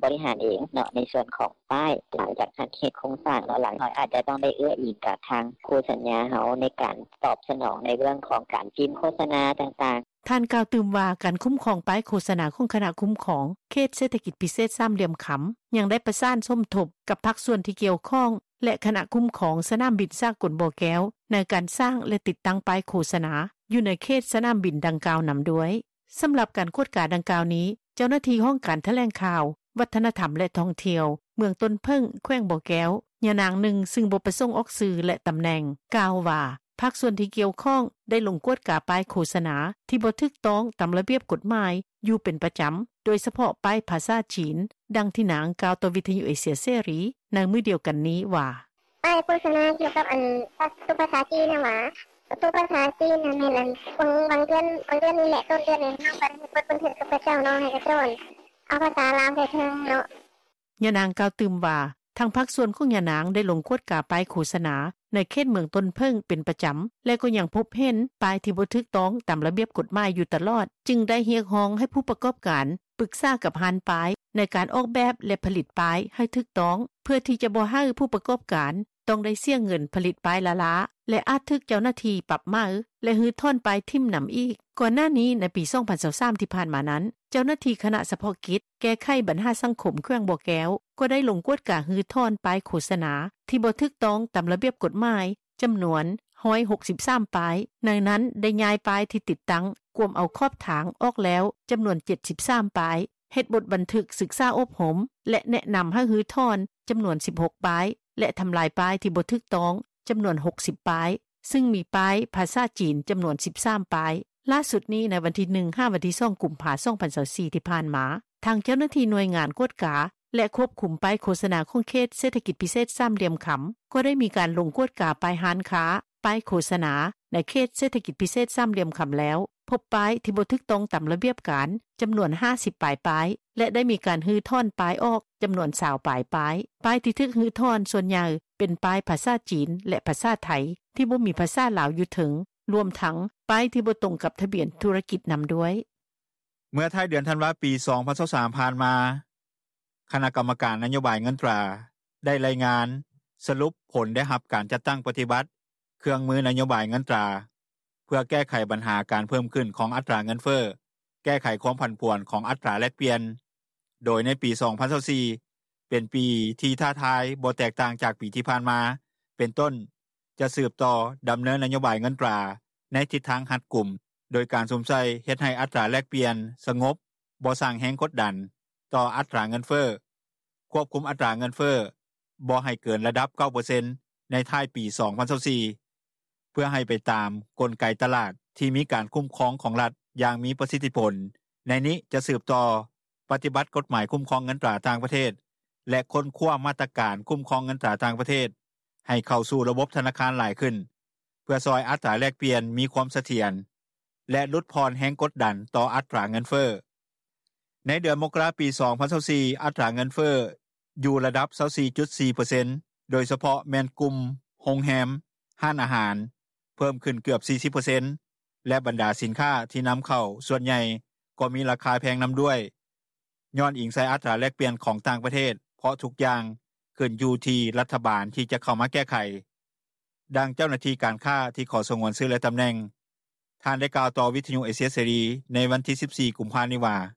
ບໍລິຫານເອງເນາະ ໃນສ່ວນຂອງປ້າຍ ຫຼັງຈາກເຮັດໂຄງສ້າງເນາະ ເຮົາອາດຈະຕ້ອງໄດ້ເອື້ອອີງກັບທາງຄູ່ສັນຍາເຮົາ ໃນການຕອບສະໜອງໃນເລື່ອງຂອງການພິມໂຄສະນາຕ່າງໆ.” ທ່ານກ່າວຕື່ມວ່າ ການຄຸ້ມຄອງປ້າຍໂຄສະນາ ຂອງຄະນະຄຸ້ມຄອງເຂດເສດຖະກິດພິເສດສາມຫຼ່ຽມຄຳ ຍັງໄດ້ປະສານສົມທົບກັບພາກສ່ວນທີ່ກ່ຽວຂ້ອງ ແລະ ຄະນະຄຸ້ມຄອງສະໜາມບິນສາກົນບໍ່ແກ້ວ ໃນການສ້າງ ແລະ ຕິດຕັ້ງປ້າຍໂຄສະນາ ຢູ່ໃນເຂດສະໜາມບິນດັ່ງກ່າວນຳດ້ວຍ. ສຳລັບການກວດກາດັ່ງກ່າວນີ້ ເຈົ້າໜ້າທີ່ຫ້ອງການຖະແຫຼງຂ່າວ ວັດທະນະທຳ ແລະ ທ່ອງທ່ຽວ ເມືອງຕົ້ນເຜິ້ງ ແຂວງບໍ່ແກ້ວ ຍານາງໜຶ່ງ ຊຶ່ງບໍ່ປະສົງອອກຊື່ ແລະ ຕຳແໜ່ງ ກ່າວວ່າ ພາກສ່ວນທີ່ກ່ຽວຂ້ອງ ໄດ້ລົງກວດກາປ້າຍໂຄສະນາ ທີ່ບໍ່ຖືກຕ້ອງຕາມລະບຽບກົດໝາຍ ຢູ່ເປັນປະຈຳ ໂດຍສະເພາະປ້າຍພາສາຈີນ. ດັ່ງທີ່ນາງກ່າວຕໍ່ວິທຍຸເອເຊຍເສລີ ໃນມື້ດຽວກັນນີ້ວ່າ: “ປ້າຍໂຄສະນາກ່ຽວກັບອັນພາສາຈີນຫັ້ນຫວາ ພາສາຈີນຫັ້ນແມ່ນອັນ ບາງເດືອນ ບາງເດືອນນີ້ແຫຼະ ຕົ້ນເດືອນນີ້ ເຮົາກໍໄດ້ເຮັດບົດບັນທຶກກັບເຂົາເຈົ້າເນາະ ໃຫ້ເຂົາເຈົ້າເອົາພາສາລາວໃສ່ເທິງເນາະ.” ຍານາງກ່າວຕື່ມວ່າ ທາງພາກສ່ວນຂອງຍານາງ ໄດ້ລົງກວດກາປ້າຍໂຄສະນາ ໃນເຂດເມືອງຕົ້ນເຜິ້ງເປັນປະຈຳ ແລະ ກໍຍັງພົບເຫັນປ້າຍທີ່ບໍ່ຖືກຕ້ອງຕາມລະບຽບກົດໝາຍຢູ່ຕະຫຼອດ ຈຶ່ງໄດ້ຮຽກຮ້ອງໃຫ້ຜູ້ປະກອບການ ປຶກສາກັບຮ້ານປ້າຍ ໃນການອອກແບບ ແລະ ຜະລິດປ້າຍໃຫ້ຖືກຕ້ອງ ເພື່ອທີ່ຈະບໍ່ໃຫ້ຜູ້ປະກອບການ ຕ້ອງໄດ້ເສຍເງິນຜະລິດປ້າຍລ້າໆ ແລະ ອາດຖືກເຈົ້າໜ້າທີ່ປັບໃໝ ແລະ ຮື້ຖອນປ້າຍຖິ້ມນຳອີກ. ກ່ອນໜ້ານີ້ ໃນປີ ສອງພັນຊາວສາມ ທີ່ຜ່ານມານັ້ນ ເຈົ້າໜ້າທີ່ຄະນະສະເພາະກິດ ແກ້ໄຂບັນຫາສັງຄົມ ແຂວງບໍ່ແກ້ວ ກໍໄດ້ລົງກວດກາຮື້ຖອນປ້າຍໂຄສະນາ ທີ່ບໍ່ຖືກຕ້ອງຕາມລະບຽບກົດໝາຍ ຈຳນວນ ໜຶ່ງຮ້ອຍຫົກສິບສາມປ້າຍ ໃນນັ້ນໄດ້ຍ້າຍປ້າຍທີ່ຕິດຕັ້ງ ກວມເອົາຂອບທາງອອກແລ້ວ ຈຳນວນ ເຈັດສິບສາມປ້າຍ, ເຮັດບົດບັນທຶກສຶກສາອົບຮົມ ແລະ ແນະນຳໃຫ້ຮື້ຖອນ ຈຳນວນ ສິບຫົກປ້າຍ ແລະ ທຳລາຍປ້າຍທີ່ບໍ່ຖືກຕ້ອງ ຈຳນວນ ຫົກສິບປ້າຍ ຊຶ່ງມີປ້າຍພາສາຈີນ ຈຳນວນ ສິບສາມປ້າຍ. ຫຼ້າສຸດນີ້ ໃນວັນທີ ໜຶ່ງ ຫາ ວັນທີ ສອງ ກຸມພາ ສອງພັນຊາວສີ່ ທີ່ຜ່ານມາ ທາງເຈົ້າໜ້າທີ່ໜ່ວຍງານກວດກາ ແລະ ຄວບຄຸມປ້າຍໂຄສະນາ ຂອງເຂດເສດຖະກິດພິເສດສາມຫຼ່ຽມຄຳ ກໍໄດ້ມີການລົງກວດກາປ້າຍຮ້ານຄ້າ, ປ້າຍໂຄສະນາ ໃນເຂດເສດຖະກິດພິເສດສາມຫຼ່ຽມຄຳແລ້ວ ພົບປ້າຍທີ່ບໍ່ຖືກຕ້ອງຕາມລະບຽບການ ຈຳນວນ ຫ້າສິບປາຍປ້າຍ ແລະ ໄດ້ມີການຮື້ຖອນປ້າຍອອກ ຈຳນວນ ຊາວປາຍປ້າຍ. ປ້າຍທີ່ຖືກຮື້ຖອນສ່ວນໃຫຍ່ ເປັນປ້າຍພາສາຈີນ ແລະ ພາສາໄທ ທີ່ບໍ່ມີພາສາລາວຢູ່ເທິງ ລວມທັງປ້າຍທີ່ບໍ່ຕົງກັບທະບຽນທຸລະກິດນຳດ້ວຍ. ເມື່ອທ້າຍເດືອນທັນວາ ປີ ສອງພັນຊາວສາມ ຜ່ານມາ, ຄະນະກຳມະການນະໂຍບາຍເງິນຕາ ໄດ້ລາຍງານສະຫຼຸບຜົນໄດ້ຮັບການຈັດຕັ້ງປະຕິບັດເຄື່ອງມືນະໂຍບາຍເງິນຕາ ເພື່ອແກ້ໄຂບັນຫາການເພີ່ມຂຶ້ນຂອງອັດຕາເງິນເຟີ້, ແກ້ໄຂຄວາມຜັນຜວນຂອງອັດຕາແລກປ່ຽນ, ໂດຍໃນປີ ສອງພັນຊາວສີ່ ເປັນປີທີ່ທ້າທາຍບໍ່ແຕກຕ່າງຈາກປີທີ່ຜ່ານມາ ເປັນຕົ້ນ ຈະສືບຕໍ່ດຳເນີນນະໂຍບາຍເງິນຕາ ໃນທິດທາງຮັດກຸມ ໂດຍການສຸມໃສ່ເຮັດໃຫ້ອັດຕາແລກປ່ຽນສະຫງົບ, ບໍ່ສ້າງແຮງກົດດັນຕໍ່ອັດຕາເງິນເຟີ້, ຄວບຄຸມອັດຕາເງິນເຟີ້ບໍ່ໃຫ້ເກີນລະດັບ ເກົ້າເປີເຊັນ ໃນທ້າຍປີ ສອງພັນຊາວສີ່ ເພື່ອໃຫ້ໄປຕາມກົນໄກຕະຫຼາດທີ່ມີການຄຸ້ມຄອງຂອງລັດຢ່າງມີປະສິດທິຜົນ. ໃນນີ້ຈະສືບຕໍ່ປະຕິບັດກົດໝາຍຄຸ້ມຄອງເງິນຕາຕ່າງປະເທດ ແລະ ຄົ້ນຄວ້າມາດຕະການຄຸ້ມຄອງເງິນຕາຕ່າງປະເທດ ໃຫ້ເຂົ້າສູ່ລະບົບທະນາຄານຫຼາຍຂຶ້ນ ເພື່ອຊ່ອຍອັດຕາແລກປ່ຽນມີຄວາມສະຖຽນ ແລະ ຫຼຸດຜ່ອນແຮງກົດດັນຕໍ່ອັດຕາເງິນເຟີ້. ໃນເດືອນມົກກະລາ ປີ ສອງພັນຊາວສີ່ ອັດຕາເງິນເຟີ້ຢູ່ລະດັບ ຊາວສີ່ຈຸດສີ່ເປີເຊັນ ໂດຍສະເພາະແມ່ນກຸ່ມໂຮງແຮມ, ຮ້ານອາຫານ ເພີ່ມຂຶ້ນເກືອບ ສີ່ສິບເປີເຊັນ ແລະ ບັນດາສິນຄ້າທີ່ນຳເຂົ້າສ່ວນໃຫຍ່ກໍມີລາຄາແພງນຳດ້ວຍ ຍ້ອນອີງໃສ່ອັດຕາແລກປ່ຽນຂອງຕ່າງປະເທດ ເພາະທຸກຢ່າງຂຶ້ນຢູ່ທີ່ລັດຖະບານທີ່ຈະເຂົ້າມາແກ້ໄຂ. ດັ່ງເຈົ້າໜ້າທີ່ການຄ້າທີ່ຂໍສະຫງວນຊື່ ແລະ ຕຳແໜ່ງ ທ່ານໄດ້ກ່າວຕໍ່ວິທຍຸເອເຊຍເສລີ ໃນວັນທີ ສິບສີ່ ກຸມພານີ້ວ່າ: “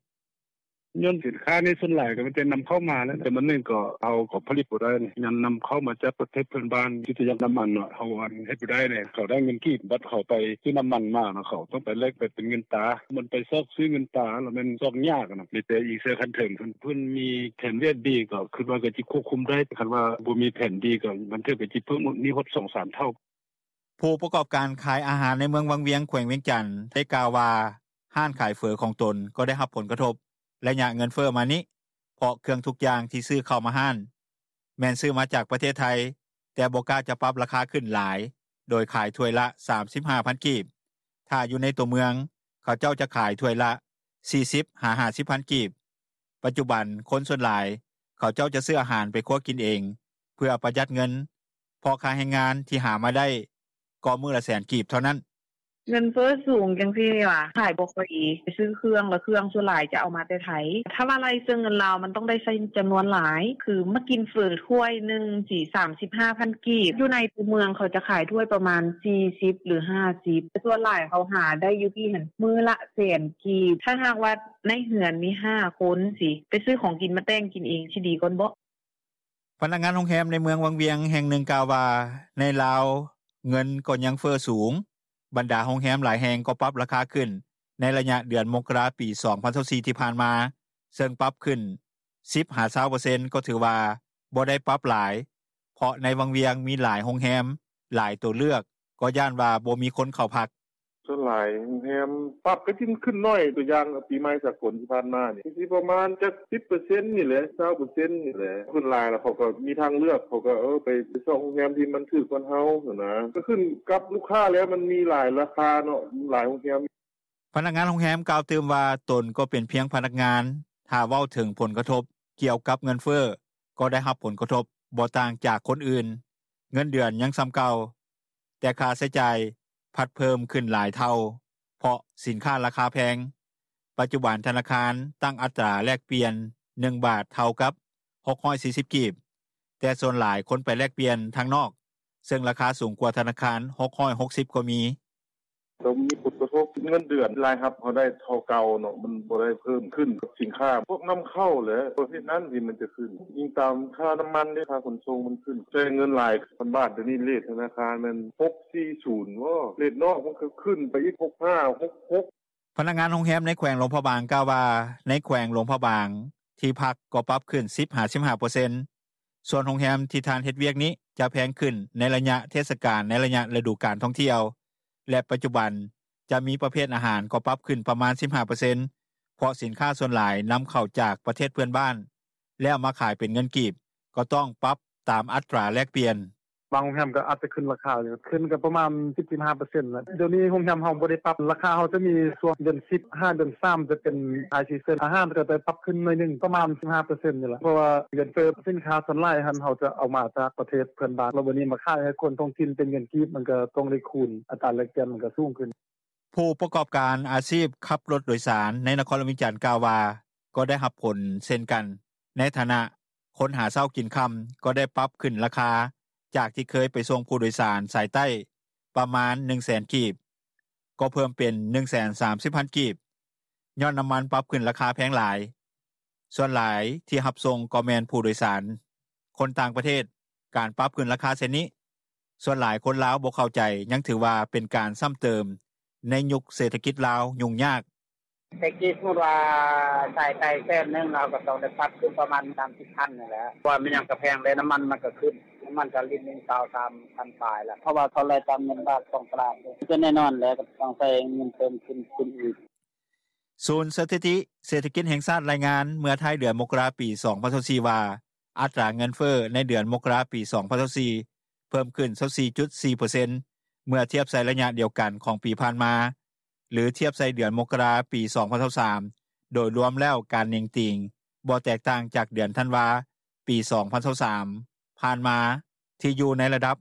ຍ້ອນສິນຄ້ານີ້ສ່ວນຫຼາຍກໍມີແຕ່ນຳເຂົ້າມາແຫຼະ ແຕ່ບາດນີ້ກໍເຮົາກໍຜະລິດບໍ່ໄດ້ ຍັງນຳເຂົ້າມາຈາກປະເທດເພື່ອນບ້ານ ຄືຈະຢ່າງນ້ຳມັນເນາະ ເຮົາເຮັດບໍ່ໄດ້ເດ ເຂົາໄດ້ເງິນກີບ ບາດເຂົາໄປຊື້ນ້ຳມັນມາເນາະ ເຂົາຕ້ອງໄປແລກໄປເປັນເງິນຕາ ມັນໄປຊອກຊື້ເງິນຕາ ລະແມ່ນຊອກຍາກນະ ມີແຕ່ອີງໃສ່ຂັ້ນເທິງ ຄັນເພິ່ນມີແຜນວຽກດີ ກໍຄິດວ່າກໍຈະຄວບຄຸມໄດ້ ຄັນວ່າບໍ່ມີແຜນດີກໍບາງເທື່ອກໍຈະເພີ່ມໜີ້ຮອດສອງສາມເທົ່າ.” ຜູ້ປະກອບການຂາຍອາຫານໃນເມືອງວັງວຽງ ແຂວງວຽງຈັນ ໄດ້ກ່າວວ່າ ຮ້ານຂາຍເຝີຂອງຕົນກໍໄດ້ຮັບຜົນກະທົບໄລຍະເງິນເຟີ້ມານີ້ ເພາະເຄື່ອງທຸກຢ່າງທີ່ຊື້ເຂົ້າມາຮ້ານ ແມ່ນຊື້ມາຈາກປະເທດໄທ ແຕ່ບໍ່ກ້າຈະປັບລາຄາຂຶ້ນຫຼາຍ ໂດຍຂາຍຖ້ວຍລະ ສາມສິບຫ້າພັນກີບ ຖ້າຢູ່ໃນຕົວເມືອງ ເຂົາເຈົ້າຈະຂາຍຖ້ວຍລະ ສີ່ສິບຫາຫ້າສິບພັນກີບ. ປັດຈຸບັນຄົນສ່ວນຫຼາຍ ເຂົາເຈົ້າຈະຊື້ອາຫານໄປຄົວກິນເອງ ເພື່ອປະຢັດເງິນ ເພາະຄ່າແຮງງານທີ່ຫາມາໄດ້ກໍມື້ລະແສນກີບເທົ່ານັ້ນ. ເງິນເຟີ້ສູງຈັ່ງຊີ້ຫວາ ຂາຍບໍ່ຄ່ອຍດີ ໄປຊື້ເຄື່ອງ ແລ້ວເຄື່ອງສ່ວນຫຼາຍຈະເອົາມາແຕ່ໄທ ຖ້າວ່າໄລ່ເຊິ່ງເງິນລາວ ມັນຕ້ອງໄດ້ໃຊ້ຈຳນວນຫຼາຍ ຄືມາກິນເຝີຖ້ວຍໜຶ່ງຊິ ສາມສິບຫ້າພັນກີບ ຢູ່ໃນຕົວເມືອງ ເຂົາຈະຂາຍຖ້ວຍປະມານ ສີ່ສິບ ຫຼື ຫ້າສິບ ສ່ວນຫຼາຍເຂົາຫາໄດ້ຢູ່ພີ້ຫັ້ນ ມື້ລະແສນກີບ ຖ້າຫາກວ່າໃນເຮືອນມີ ຫ້າຄົນຊິ ໄປຊື້ຂອງກິນມາແຕ່ງກິນເອງ ຊິດີກ່ອນເບາະ.” ພະນັກງານໂຮງແຮມໃນເມືອງວັງວຽງແຫ່ງໜຶ່ງກ່າວວ່າ ໃນລາວເງິນກໍຍັງເຟີ້ສູງ ບັນດາໂຮງແຮມຫຼາຍແຫ່ງກໍປັບລາຄາຂຶ້ນ ໃນໄລຍະເດືອນມົກກະລາ ປີ ສອງພັນຊາວສີ່ ທີ່ຜ່ານມາ ເຊິ່ງປັບຂຶ້ນ ສິບຫາຊາວເປີເຊັນ ກໍຖືວ່າບໍ່ໄດ້ປັບຫຼາຍ ເພາະໃນວັງວຽງມີຫຼາຍໂຮງແຮມ ຫຼາຍໂຕເລືອກ ກໍຢ້ານວ່າບໍ່ມີຄົນເຂົ້າພັກ. “ສ່ວນຫຼາຍໂຮງແຮມປັບ ກໍຊິຂຶ້ນໜ້ອຍ ຕົວຢ່າງປີໃໝ່ສາກົນທີ່ຜ່ານມານີ້ ກໍຊິປະມານຈັກ ສິບເປີເຊັນນີ້ແຫຼະ ຊາວເປີເຊັນນີ້ແຫຼະ ສ່ວນຫຼາຍແລ້ວເຂົາກໍມີທາງເລືອກ ເຂົາກໍເອີ ໄປຊອກໂຮງແຮມທີ່ມັນຖືກກວ່າເຮົາຫັ້ນນະ ກໍຂຶ້ນກັບລູກຄ້າແລ້ວ ມັນມີຫຼາຍລາຄາເນາະ ຫຼາຍໂຮງແຮມ.” ພະນັກງານໂຮງແຮມກ່າວຕື່ມວ່າ ຕົນກໍເປັນພຽງພະນັກງານ ຖ້າເວົ້າເຖິງຜົນກະທົບກ່ຽວກັບເງິນເຟີ້ ກໍໄດ້ຮັບຜົນກະທົບບໍ່ຕ່າງຈາກຄົນອື່ນ ເງິນເດືອນຍັງສ່ຳເກົ່າ ແຕ່ຄ່າໃຊ້ຈ່າຍພັດເພີ່ມຂຶ້ນຫຼາຍເທົ່າ ເພາະສິນຄ້າລາຄາແພງ. ປັດຈຸບັນທະນາຄານຕັ້ງອັດຕາແລກປ່ຽນ ໜຶ່ງບາດເທົ່າກັບ ຫົກຮ້ອຍສີ່ສິບກີບ ແຕ່ສ່ວນຫຼາຍຄົນໄປແລກປ່ຽນທາງນອກ ເຊິ່ງລາຄາສູງກວ່າທະນາຄານ ຫົກຮ້ອຍຫົກສິບກໍມີ. “ກໍມີຜົນກະທົບ ເງິນເດືອນລາຍຮັບເຮົາໄດ້ເທົ່າເກົ່າເນາະ ມັນບໍ່ໄດ້ເພີ່ມຂຶ້ນກັບສິນຄ້າພວກນຳເຂົ້າແຫຼະ ປະເພດນັ້ນທີ່ມັນຈະຂຶ້ນ ອີງຕາມຄ່ານ້ຳມັນເດ້ ຄ່າຂົນສົ່ງມັນຂຶ້ນ ໃຊ້ເງິນຫຼາຍ ພັນບາດດຽວນີ້ ເຣດທະນາຄານແມ່ນ ຫົກສີ່ສູນບໍ ເຣດນອກມັນກໍຂຶ້ນໄປອີກ ຫົກຫ້າ ຫົກຫົກ.” ພະນັກງານໂຮງແຮມໃນແຂວງຫຼວງພະບາງກ່າວວ່າ ໃນແຂວງຫຼວງພະບາງ ທີ່ພັກກໍປັບຂຶ້ນ ສິບຫາສິບຫ້າເປີເຊັນ ສ່ວນໂຮງແຮມທີ່ທ່ານເຮັດວຽກນີ້ ຈະແພງຂຶ້ນໃນໄລຍະເທດສະການ ໃນໄລຍະລະດູການທ່ອງທ່ຽວ ແລະ ປັດຈຸບັນຈະມີປະເພດອາຫານກໍປັບຂຶ້ນປະມານ ສິບຫ້າເປີເຊັນ ເພາະສິນຄ້າສ່ວນຫຼາຍນຳເຂົ້າຈາກປະເທດເພື່ອນບ້ານ ແລ້ວມາຂາຍເປັນເງິນກີບ ກໍຕ້ອງປັບຕາມອັດຕາແລກປ່ຽນ. “ບາງໂຮງແຮມກໍອາດຈະຂຶ້ນລາຄາຢູ່ ຂຶ້ນກໍປະມານ ສິບ ສິບຫ້າເປີເຊັນແຫຼະ ດຽວນີ້ໂຮງແຮມເຮົາບໍ່ໄດ້ປັບ ລາຄາເຮົາຈະມີຊ່ວງເດືອນສິບ ຫາເດືອນສາມ ຈະເປັນ high season ອາຫານກໍໄດ້ປັບຂຶ້ນໜ້ອຍໜຶ່ງ ປະມານ ສິບຫ້າເປີເຊັນນີ້ແຫຼະ ເພາະວ່າເງິນເຟີ້ ສິນຄ້າສ່ວນຫຼາຍຫັ້ນ ເຮົາຈະເອົາມາຈາກປະເທດເພື່ອນບ້ານ ແລ້ວບາດນີ້ມາຂາຍໃຫ້ຄົນທ້ອງຖິ່ນເປັນເງິນກີບ ມັນກໍຕ້ອງໄດ້ຄູນ ອັດຕາແລກປ່ຽນມັນກໍສູງຂຶ້ນ.” ຜູ້ປະກອບການອາຊີບຂັບລົດໂດຍສານ ໃນນະຄອນຫຼວງວຽງຈັນກ່າວວ່າ ກໍໄດ້ຮັບຜົນເຊັ່ນກັນ ໃນຖານະຄົນຫາເຊົ້າກິນຄ່ຳ ກໍໄດ້ປັບຂຶ້ນລາຄາ ຈາກທີ່ເຄີຍໄປສົ່ງຜູ້ໂດຍສານສາຍໃຕ້ປະມານ ໜຶ່ງແສນກີບ ກໍເພີ່ມເປັນ ໜຶ່ງແສນສາມສິບພັນກີບ ຍ້ອນນ້ຳມັນປັບຂຶ້ນລາຄາແພງຫຼາຍ. ສ່ວນຫຼາຍທີ່ຮັບສົ່ງກໍແມ່ນຜູ້ໂດຍສານຄົນຕ່າງປະເທດ. ການປັບຂຶ້ນລາຄາເຊັ່ນນີ້ ສ່ວນຫຼາຍຄົນລາວບໍ່ເຂົ້າໃຈ ຍັງຖືວ່າເປັນການຊ້ຳເຕີມໃນຍຸກເສດຖະກິດລາວຫຍຸ້ງຍາກ. “ແຕ່ກີ້ສົມມຸດວ່າສາຍໃຕ້ແສນໜຶ່ງ ເຮົາກໍຕ້ອງໄດ້ປັບຂຶ້ນປະມານ ສາມສິບພັນນີ້ແຫຼະ ເພາະວ່າແມ່ນຫຍັງກໍແພງເດ້ ນ້ຳມັນມັນກໍຂຶ້ນ ນ້ຳມັນກໍລິດໜຶ່ງ ຊາວສາມພັນປາຍແລ້ວ ເພາະວ່າເຂົາໄລ່ຕາມເງິນບາດຂອງຕະຫຼາດເດ້ ກໍແນ່ນອນແຫຼະ ກໍຕ້ອງໃຊ້ເງິນເພີ່ມຂຶ້ນ ຂຶ້ນອີກ.” ສູນສະຖິຕິເສດຖະກິດແຫ່ງຊາດລາຍງານ ເມື່ອທ້າຍເດືອນມົກກະລາ ປີສອງພັນຊາວສີ່ ວ່າ ອັດຕາເງິນເຟີ້ໃນເດືອນມົກກະລາ ປີສອງພັນຊາວສີ່ ເພີ່ມຂຶ້ນ ຊາວສີ່ຈຸດສີ່ເປີເຊັນ ເມື່ອທຽບໃສ່ໄລຍະດຽວກັນຂອງປີຜ່ານມາ ຫຼື ທຽບໃສ່ເດືອນມົກກະລາ ປີສອງພັນຊາວສາມ ໂດຍລວມແລ້ວການເໜັງຕີງບໍ່ແຕກຕ່າງຈາກເດືອນທັນວາ ປີສອງພັນຊາວສາມ ຜ່ານມາ ທີ່ຢູ່ໃນລະດັບ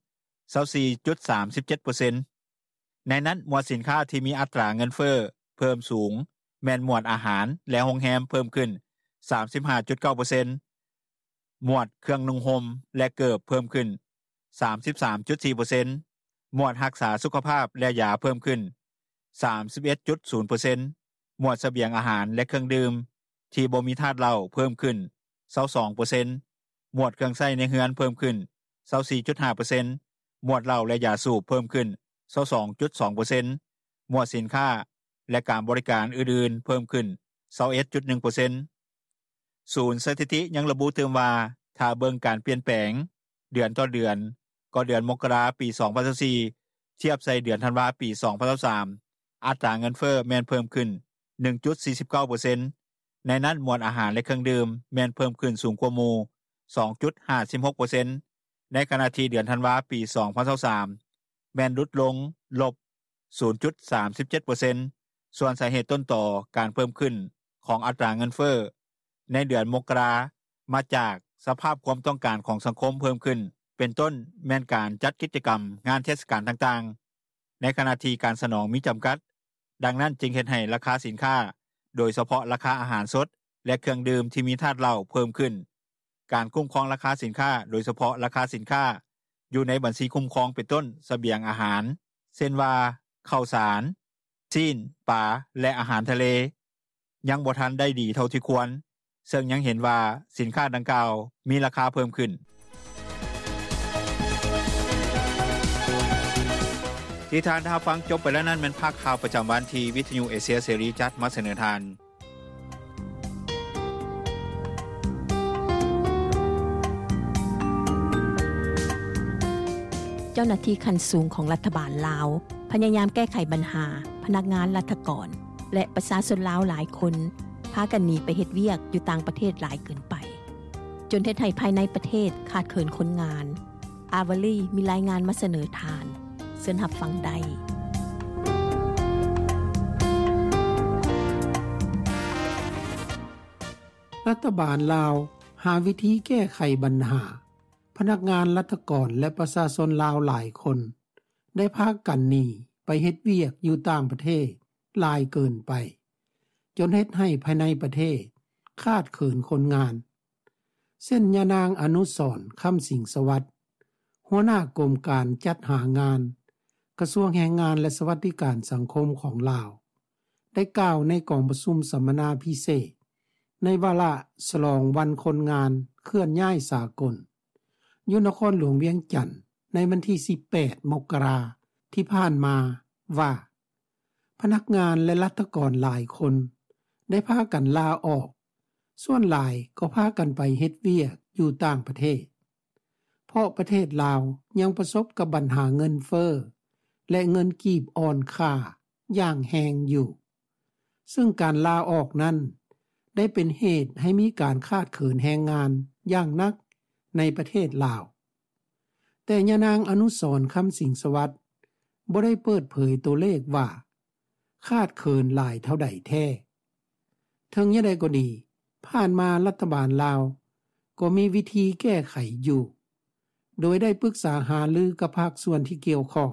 ຊາວສີ່ຈຸດສາມເຈັດເປີເຊັນ. ໃນນັ້ນ ໝວດສິນຄ້າທີ່ມີອັດຕາເງິນເຟີ້ເພີ່ມສູງ ແມ່ນໝວດອາຫານ ແລະ ໂຮງແຮມ ເພີ່ມຂຶ້ນ ສາມສິບຫ້າຈຸດເກົ້າເປີເຊັນ, ໝວດເຄື່ອງນຸ່ງຫົ່ມ ແລະ ເກີບ ເພີ່ມຂຶ້ນ ສາມສິບສາມຈຸດສີ່ເປີເຊັນ, ໝວດຮັກສາສຸຂະພາບ ແລະ ຢາ ເພີ່ມຂຶ້ນ ສາມສິບເອັດຈຸດສູນເປີເຊັນ, ໝວດສະບຽງອາຫານ ແລະ ເຄື່ອງດື່ມທີ່ບໍ່ມີທາດເຫຼົ້າ ເພີ່ມຂຶ້ນ ຊາວສອງເປີເຊັນ, ໝວດເຄື່ອງໃຊ້ໃນເຮືອນ ເພີ່ມຂຶ້ນ ຊາວສີ່ຈຸດຫ້າເປີເຊັນ, ໝວດເຫຼົ້າ ແລະ ຢາສູບ ເພີ່ມຂຶ້ນ ຊາວສອງຈຸດສອງເປີເຊັນ, ໝວດສິນຄ້າ ແລະ ການບໍລິການອື່ນໆ ເພີ່ມຂຶ້ນ ຊາວເອັດຈຸດໜຶ່ງເປີເຊັນ. ສູນສະຖິຕິຍັງລະບຸຕື່ມວ່າ ຖ້າເບິ່ງການປ່ຽນແປງເດືອນຕໍ່ເດືອນ ກໍເດືອນມົກກະລາ ປີສອງພັນຊາວສີ່ ທຽບໃສ່ເດືອນທັນວາ ປີສອງພັນຊາວສາມ ອັດຕາເງິນເຟີ້ແມ່ນເພີ່ມຂຶ້ນ ໜຶ່ງຈຸດສີ່ສິບເກົ້າເປີເຊັນ, ໃນນັ້ນໝວດອາຫານ ແລະ ເຄື່ອງດື່ມ ແມ່ນເພີ່ມຂຶ້ນສູງກວ່າໝູ່ ສອງຈຸດຫ້າສິບຫົກເປີເຊັນ, ໃນຂະນະທີ່ເດືອນທັນວາ ປີສອງພັນຊາວສາມ ແມ່ນຫຼຸດລົງ ລົບສູນຈຸດສາມສິບເຈັດເປີເຊັນ. ສ່ວນສາເຫດຕົ້ນຕໍການເພີ່ມຂຶ້ນຂອງອັດຕາເງິນເຟີ້ໃນເດືອນມົກກະລາ ມາຈາກສະພາບຄວາມຕ້ອງການຂອງສັງຄົມເພີ່ມຂຶ້ນ ເປັນຕົ້ນແມ່ນການຈັດກິດຈະກຳງານເທດສະການຕ່າງໆ. ໃນຂະນະທີ່ການສະໜອງມີຈຳກັດ, ດັ່ງນັ້ນຈຶ່ງເຮັດໃຫ້ລາຄາສິນຄ້າ, ໂດຍສະເພາະລາຄາອາຫານສົດ ແລະ ເຄື່ອງດື່ມທີ່ມີທາດເຫຼົ້າເພີ່ມຂຶ້ນ. ການຄຸ້ມຄອງລາຄາສິນຄ້າ, ໂດຍສະເພາະລາຄາສິນຄ້າຢູ່ໃນບັນຊີຄຸ້ມຄອງ ເປັນຕົ້ນສະບຽງອາຫານ ເຊັ່ນວ່າ ເຂົ້າສານ, ຊີ້ນ, ປາ ແລະ ອາຫານທະເລ ຍັງບໍ່ທັນໄດ້ດີເທົ່າທີ່ຄວນ, ເຊິ່ງຍັງເຫັນວ່າສິນຄ້າດັ່ງກ່າວມີລາຄາເພີ່ມຂຶ້ນ. ທີ່ທ່ານໄດ້ຮັບຟັງຈົບໄປແລ້ວນັ້ນ ແມ່ນພາກຂ່າວປະຈຳວັນທີ່ວິທະຍຸເອເຊຍເສລີຈັດມາສະເໜີທ່ານ. ເຈົ້າໜ້າທີ່ຂັ້ນສູງຂອງລັດຖະບານລາວ ພະຍາຍາມແກ້ໄຂບັນຫາພະນັກງານລັດຖະກອນ ແລະ ປະຊາຊົນລາວຫຼາຍຄົນ ພາກັນໜີໄປເຮັດວຽກຢູ່ຕ່າງປະເທດຫຼາຍເກີນໄປ, ຈົນເຮັດໃຫ້ພາຍໃນປະເທດຂາດເຂີນຄົນງານ. ອາວາລີມີລາຍງານມາສະເໜີທ່ານ, ເຊີນຮັບຟັງໄດ້. ລັດຖະບານລາວຫາວິທີແກ້ໄຂບັນຫາ ພະນັກງານລັດຖະກອນ ແລະ ປະຊາຊົນລາວຫຼາຍຄົນ ໄດ້ພາກັນໜີໄປເຮັດວຽກຢູ່ຕ່າງປະເທດຫຼາຍເກີນໄປ, ຈົນເຮັດໃຫ້ພາຍໃນປະເທດຂາດເຂີນຄົນງານ. ເຊັ່ນ ຍານາງ ອະນຸສອນ ຄຳສິງສະຫວັດ ຫົວໜ້າກົມການຈັດຫາງານ ກະຊວງແຮງງານ ແລະ ສະຫວັດດີການສັງຄົມຂອງລາວ ໄດ້ກ່າວໃນກອງປະຊຸມສຳມະນາພິເສດ ໃນວາລະສະຫຼອງວັນຄົນງານເຄື່ອນຍ້າຍສາກົນ ຢູ່ນະຄອນຫຼວງວຽງຈັນ ໃນວັນທີສິບແປດ ມົກກະລາ ທີ່ຜ່ານມາວ່າ ພະນັກງານ ແລະ ລັດຖະກອນຫຼາຍຄົນໄດ້ພາກັນລາອອກ, ສ່ວນຫຼາຍກໍພາກັນໄປເຮັດວຽກຢູ່ຕ່າງປະເທດ, ເພາະປະເທດລາວຍັງປະສົບກັບບັນຫາເງິນເຟີ້ ແລະ ເງິນກີບອ່ອນຄ່າຢ່າງແຮງຢູ່. ເຊິ່ງການລາອອກນັ້ນ ໄດ້ເປັນເຫດໃຫ້ມີການຂາດເຂີນແຮງງານຢ່າງໜັກໃນປະເທດລາວ. ແຕ່ຍານາງ ອະນຸສອນ ຄຳສິງສະຫວັດ ບໍ່ໄດ້ເປີດເຜີຍຕົວເລກວ່າຂາດເຂີນຫຼາຍເທົ່າໃດແທ້. ເຖິງຢ່າງໃດກໍດີ, ຜ່ານມາລັດຖະບານລາວກໍມີວິທີແກ້ໄຂຢູ່, ໂດຍໄດ້ປຶກສາຫາລືກັບພາກສ່ວນທີ່ກ່ຽວຂ້ອງ,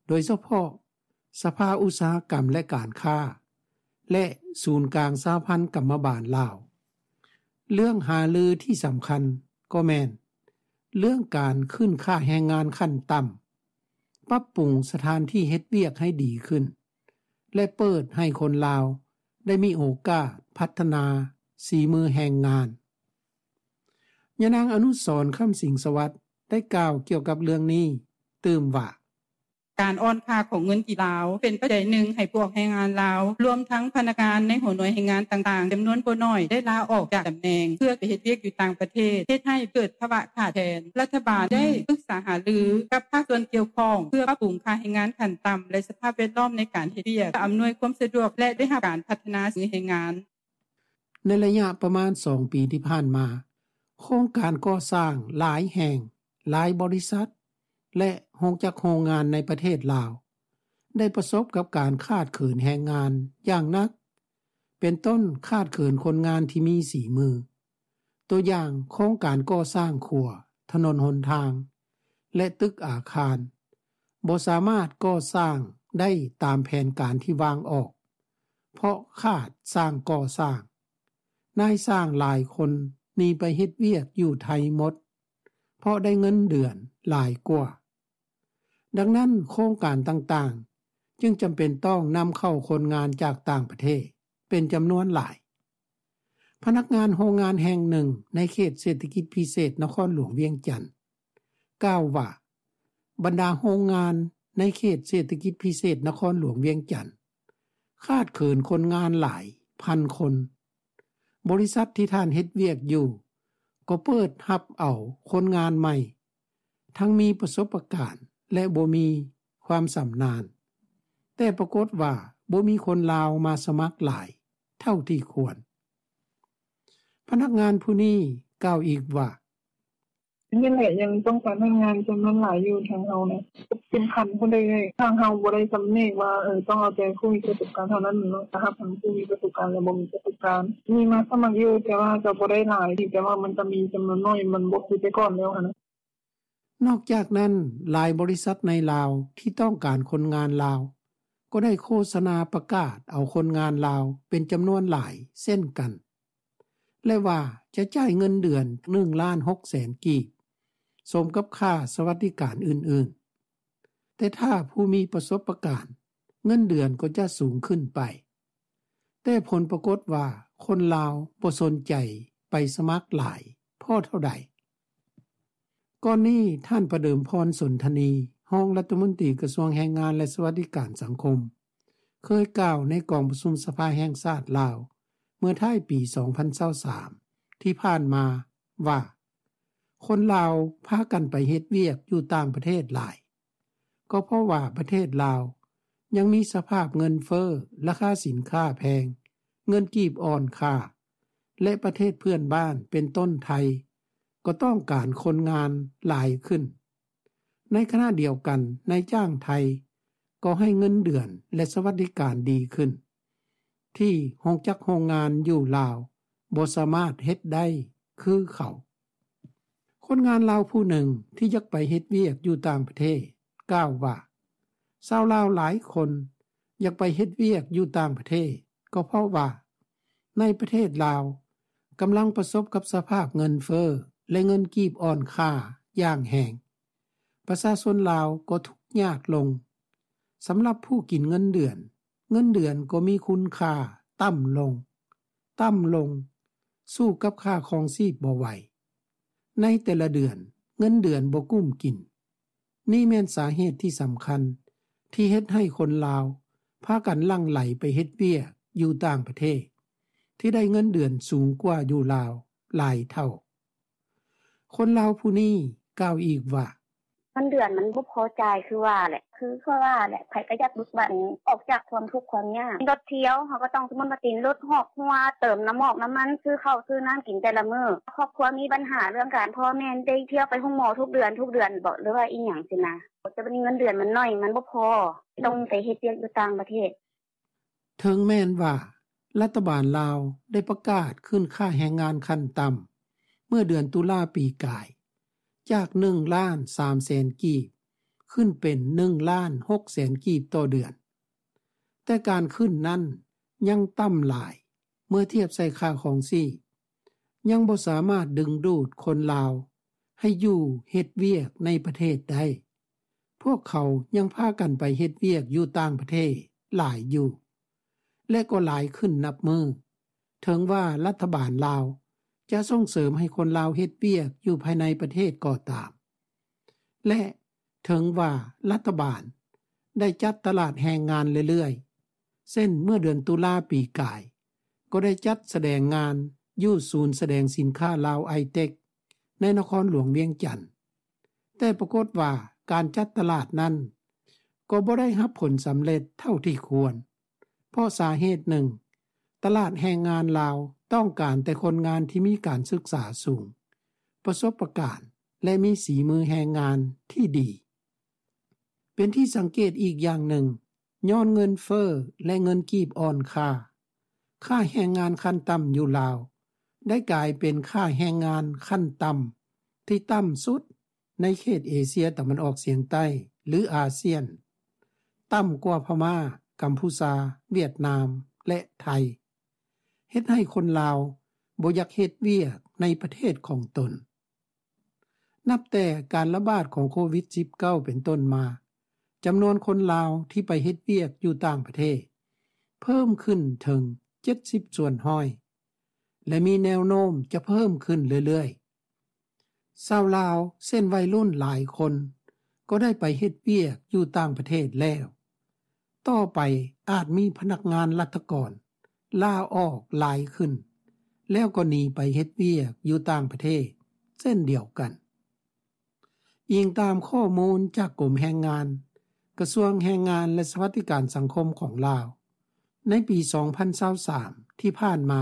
ໂດຍສະເພາະ ສະພາອຸດສາຫະກຳ ແລະ ການຄ້າ ແລະ ສູນກາງສະຫະພັນກຳມະບານລາວ. ເລື່ອງຫາລືທີ່ສຳຄັນກໍແມ່ນເລື່ອງການຂຶ້ນຄ່າແຮງງານຂັ້ນຕ່ຳ, ປັບປຸງສະຖານທີ່ເຮັດວຽກໃຫ້ດີຂຶ້ນ ແລະ ເປີດໃຫ້ຄົນລາວໄດ້ມີໂອກາດພັດທະນາສີມືແຮງງານ. ຍານາງ ອະນຸສອນ ຄຳສິງສະຫວັດ ໄດ້ກ່າວກ່ຽວກັບເລື່ອງນີ້ຕື່ມວ່າ: ການອ່ອນຄ່າຂອງເງິນກີບລາວ ເປັນປັດໄຈໜຶ່ງໃຫ້ພວກແຮງງານລາວ ລວມທັງພະນັກງານໃນຫົວໜ່ວຍແຮງງານຕ່າງໆ ຈຳນວນບໍ່ໜ້ອຍ ໄດ້ລາອອກຈາກຕຳແໜ່ງ ເພື່ອໄປເຮັດວຽກຢູ່ຕ່າງປະເທດ, ເຮັດໃຫ້ເກີດພາວະຂາດແຄນ. ລັດຖະບານໄດ້ປຶກສາຫາລືກັບພາກສ່ວນກ່ຽວຂ້ອງ ເພື່ອປັບປຸງຄ່າແຮງງານຂັ້ນຕ່ຳ ແລະ ສະພາບແວດລ້ອມໃນການເຮັດວຽກ, ເພື່ອອຳນວຍຄວາມສະດວກ ແລະ ໄດ້ຮັບການພັດທະນາສີມືແຮງງານ. ໃນໄລຍະປະມານສອງປີທີ່ຜ່ານມາ, ໂຄງການກໍ່ສ້າງຫຼາຍແຫ່ງ, ຫຼາຍບໍລິສັດ ແລະ ໂຮງຈັກໂຮງງານໃນປະເທດລາວ ໄດ້ປະສົບກັບການຂາດເຂີນແຮງງານຢ່າງໜັກ, ເປັນຕົ້ນຂາດເຂີນຄົນງານທີ່ມີສີມື. ຕົວຢ່າງ, ໂຄງການກໍ່ສ້າງຂົວ, ຖະໜົນຫົນທາງ ແລະ ຕຶກອາຄານ ບໍ່ສາມາດກໍ່ສ້າງໄດ້ຕາມແຜນການທີ່ວາງອອກ, ເພາະຂາດຊ່າງກໍ່ສ້າງ. ນາຍຊ່າງຫຼາຍຄົນໜີໄປເຮັດວຽກຢູ່ໄທໝົດ, ເພາະໄດ້ເງິນເດືອນຫຼາຍກວ່າ. ດັ່ງນັ້ນ, ໂຄງການຕ່າງໆຈຶ່ງຈຳເປັນຕ້ອງນຳເຂົ້າຄົນງານຈາກຕ່າງປະເທດເປັນຈຳນວນຫຼາຍ. ພະນັກງານໂຮງງານແຫ່ງໜຶ່ງໃນເຂດເສດຖະກິດພິເສດນະຄອນຫຼວງວຽງຈັນ ກ່າວວ່າ ບັນດາໂຮງງານໃນເຂດເສດຖະກິດພິເສດນະຄອນຫຼວງວຽງຈັນ ຂາດເຂີນຄົນງານຫຼາຍພັນຄົນ. ບໍລິສັດທີ່ທ່ານເຮັດວຽກຢູ່ ກໍເປີດຮັບເອົາຄົນງານໃໝ່ ທັງມີປະສົບປະການ ແລະ ບໍ່ມີຄວາມຊຳນານ, ແຕ່ປາກົດວ່າບໍ່ມີຄົນລາວມາສະໝັກຫຼາຍເທົ່າທີ່ຄວນ. ພະນັກງານຜູ້ນີ້ກ່າວອີກວ່າ: ແມ່ນແຫຼະ, ຍັງຕ້ອງການພະນັກງານຈຳນວນຫຼາຍຢູ່ທາງເຮົານະ. ເປັນຂັ້ນພຸ້ນເດ້ເອື້ອຍ, ທາງເຮົາບໍ່ໄດ້ຈຳແນກວ່າ ເອີ ຕ້ອງເອົາແຕ່ຜູ້ມີປະສົບການເທົ່ານັ້ນເນາະ, ຈະຮັບທັງຜູ້ມີປະສົບການ ແລະ ບໍ່ມີປະສົບການ. ມີມາສະໝັກຢູ່, ແຕ່ວ່າກໍບໍ່ໄດ້ຫຼາຍ, ເພຽງແຕ່ວ່າມັນກໍມີຈຳນວນໜ້ອຍ, ມັນບໍ່ຄືແຕ່ກ່ອນແລ້ວຫັ້ນນະ. ນອກຈາກນັ້ນ, ຫຼາຍບໍລິສັດໃນລາວທີ່ຕ້ອງການຄົນງານລາວ ກໍໄດ້ໂຄສະນາປະກາດເອົາຄົນງານລາວເປັນຈຳນວນຫຼາຍເຊັ່ນກັນ ແລະວ່າຈະຈ່າຍເງິນເດືອນ ໜຶ່ງລ້ານຫົກແສນກີບ ສົມກັບຄ່າສະຫວັດດີການອື່ນໆ. ແຕ່ຖ້າຜູ້ມີປະສົບປະການ, ເງິນເດືອນກໍຈະສູງຂຶ້ນໄປ. ແຕ່ຜົນປາກົດວ່າຄົນລາວບໍ່ສົນໃຈໄປສະໝັກຫຼາຍພໍເທົ່າໃດ. ກ່ອນນີ້, ທ່ານ ປະເດີມພອນ ສົນທະນີ, ຮອງລັດຖະມົນຕີກະຊວງແຮງງານ ແລະ ສະຫວັດດີການສັງຄົມ, ເຄີຍກ່າວໃນກອງປະຊຸມສະພາແຫ່ງຊາດລາວ ເມື່ອທ້າຍປີສອງພັນຊາວສາມ ທີ່ຜ່ານມາວ່າ ຄົນລາວພາກັນໄປເຮັດວຽກຢູ່ຕ່າງປະເທດຫຼາຍ ກໍເພາະວ່າປະເທດລາວຍັງມີສະພາບເງິນເຟີ້, ລາຄາສິນຄ້າແພງ, ເງິນກີບອ່ອນຄ່າ ແລະ ປະເທດເພື່ອນບ້ານເປັນຕົ້ນໄທ ກໍຕ້ອງການຄົນງານຫຼາຍຂຶ້ນ. ໃນຂະນະດຽວກັນ, ນາຍຈ້າງໄທກໍໃຫ້ເງິນເດືອນ ແລະ ສະຫວັດດີການດີຂຶ້ນ ທີ່ໂຮງຈັກໂຮງງານຢູ່ລາວບໍ່ສາມາດເຮັດໄດ້ຄືເຂົາ. ຄົນງານລາວຜູ້ໜຶ່ງທີ່ຢາກໄປເຮັດວຽກຢູ່ຕ່າງປະເທດ ກ່າວວ່າ ຊາວລາວຫຼາຍຄົນຢາກໄປເຮັດວຽກຢູ່ຕ່າງປະເທດ ກໍເພາະວ່າໃນປະເທດລາວກຳລັງປະສົບກັບສະພາບເງິນເຟີ້ ແລະ ເງິນກີບອ່ອນຄ່າຢ່າງແຮງ. ປະຊາຊົນລາວກໍທຸກຍາກລົງ. ສຳລັບຜູ້ກິນເງິນເດືອນ, ເງິນເດືອນກໍມີຄຸນຄ່າຕ່ຳລົງ, ຕ່ຳລົງ, ສູ້ກັບຄ່າຄອງຊີບບໍ່ໄຫວ. ໃນແຕ່ລະເດືອນ, ເງິນເດືອນບໍ່ກຸ້ມກິນ. ນີ້ແມ່ນສາເຫດທີ່ສຳຄັນທີ່ເຮັດໃຫ້ຄົນລາວພາກັນຫຼັ່ງໄຫຼໄປເຮັດວຽກຢູ່ຕ່າງປະເທດ ທີ່ໄດ້ເງິນເດືອນສູງກວ່າຢູ່ລາວຫຼາຍເທົ່າ. ຄົນລາວຜູ້ນີ້ກ່າວອີກວ່າ ເງິນເດືອນມັນບໍ່ພໍຈ່າຍຄືວ່າແຫຼະ ຄືຂ້ອຍວ່າແຫຼະ ໃຜກໍຢາກເບີກບານອອກຈາກຄວາມທຸກຄວາມຍາກ. ລົດທ່ຽວ ເຮົາກໍຕ້ອງ ສົມມຸດວ່າຕິດລົດຮອກຫົວ ເຕີມນ້ຳມັນ ນ້ຳມັນ ຊື້ເຂົ້າຊື້ນ້ຳກິນແຕ່ລະມື້. ຄອບຄົວມີບັນຫາເລື່ອງການ ພໍ່ແມ່ໄດ້ທ່ຽວໄປໂຮງໝໍທຸກເດືອນ ທຸກເດືອນບໍ ຫຼືວ່າອີ່ຫຍັງຊີ້ນະ. ແຕ່ບັດນີ້ເງິນເດືອນມັນໜ້ອຍ ມັນບໍ່ພໍ ຕ້ອງໄປເຮັດວຽກຢູ່ຕ່າງປະເທດ. ເຖິງແມ່ນວ່າລັດຖະບານລາວໄດ້ປະກາດຂຶ້ນຄ່າແຮງງານຂັ້ນຕ່ຳເມື່ອເດືອນຕຸລາປີກາຍ ຈາກໜຶ່ງລ້ານສາມແສນກີບ ຂຶ້ນເປັນໜຶ່ງລ້ານຫົກແສນກີບຕໍ່ເດືອນ, ແຕ່ການຂຶ້ນນັ້ນຍັງຕ່ຳຫຼາຍເມື່ອທຽບໃສ່ຄ່າຄອງຊີບ, ຍັງບໍ່ສາມາດດຶງດູດຄົນລາວໃຫ້ຢູ່ເຮັດວຽກໃນປະເທດໄດ້. ພວກເຂົາຍັງພາກັນໄປເຮັດວຽກຢູ່ຕ່າງປະເທດຫຼາຍຢູ່ ແລະ ກໍຫຼາຍຂຶ້ນນັບມື້, ເຖິງວ່າລັດຖະບານລາວຈະສົ່ງເສີມໃຫ້ຄົນລາວເຮັດວຽກຢູ່ພາຍໃນປະເທດກໍຕາມ ແລະ ເຖິງວ່າລັດຖະບານໄດ້ຈັດຕະຫຼາດແຮງງານເລື້ອຍໆ, ເຊັ່ນ ເມື່ອເດືອນຕຸລາປີກາຍ ກໍໄດ້ຈັດສະແດງງານຢູ່ສູນສະແດງສິນຄ້າລາວໄອເຕັກ ໃນນະຄອນຫຼວງວຽງຈັນ, ແຕ່ປາກົດວ່າການຈັດຕະຫຼາດນັ້ນກໍບໍ່ໄດ້ຮັບຜົນສຳເລັດເທົ່າທີ່ຄວນ, ເພາະສາເຫດໜຶ່ງ, ຕະຫຼາດແຮງງານລາວຕ້ອງການແຕ່ຄົນງານທີ່ມີການສຶກສາສູງ, ປະສົບປະການ ແລະ ມີສີມືແຮງງານທີ່ດີ. ເປັນທີ່ສັງເກດອີກຢ່າງໜຶ່ງ, ຍ້ອນເງິນເຟີ້ ແລະ ເງິນກີບອ່ອນຄ່າ, ຄ່າແຮງງານຂັ້ນຕ່ຳຢູ່ລາວ ໄດ້ກາຍເປັນຄ່າແຮງງານຂັ້ນຕ່ຳທີ່ຕ່ຳສຸດໃນເຂດເອເຊຍຕາເວັນອອກສຽງໃຕ້ ຫຼື ອາຊຽນ, ຕ່ຳກວ່າພະມ້າ, ກຳພູຊາ, ຫວຽດນາມ ແລະ ໄທ, ເຮັດໃຫ້ຄົນລາວບໍ່ຢາກເຮັດວຽກໃນປະເທດຂອງຕົນ. ນັບແຕ່ການລະບາດຂອງໂຄວິດສິບເກົ້າເປັນຕົ້ນມາ, ຈຳນວນຄົນລາວທີ່ໄປເຮັດວຽກຢູ່ຕ່າງປະເທດເພີ່ມຂຶ້ນເຖິງເຈັດສິບສ່ວນຮ້ອຍ ແລະ ມີແນວໂນ້ມຈະເພີ່ມຂຶ້ນເລື້ອຍໆ. ຊາວລາວ ເຊັ່ນ ໄວລຸ້ນຫຼາຍຄົນກໍໄດ້ໄປເຮັດວຽກຢູ່ຕ່າງປະເທດແລ້ວ. ຕໍ່ໄປອາດມີພະນັກງານລັດຖະກອນລາອອກຫຼາຍຂຶ້ນ ແລ້ວກໍໜີໄປເຮັດວຽກຢູ່ຕ່າງປະເທດເຊັ່ນດຽວກັນ. ອີງຕາມຂໍ້ມູນຈາກກົມແຮງງານ, ກະຊວງແຮງງານ ແລະ ສະຫວັດດີການສັງຄົມຂອງລາວ, ໃນປີສອງພັນຊາວສາມທີ່ຜ່ານມາ,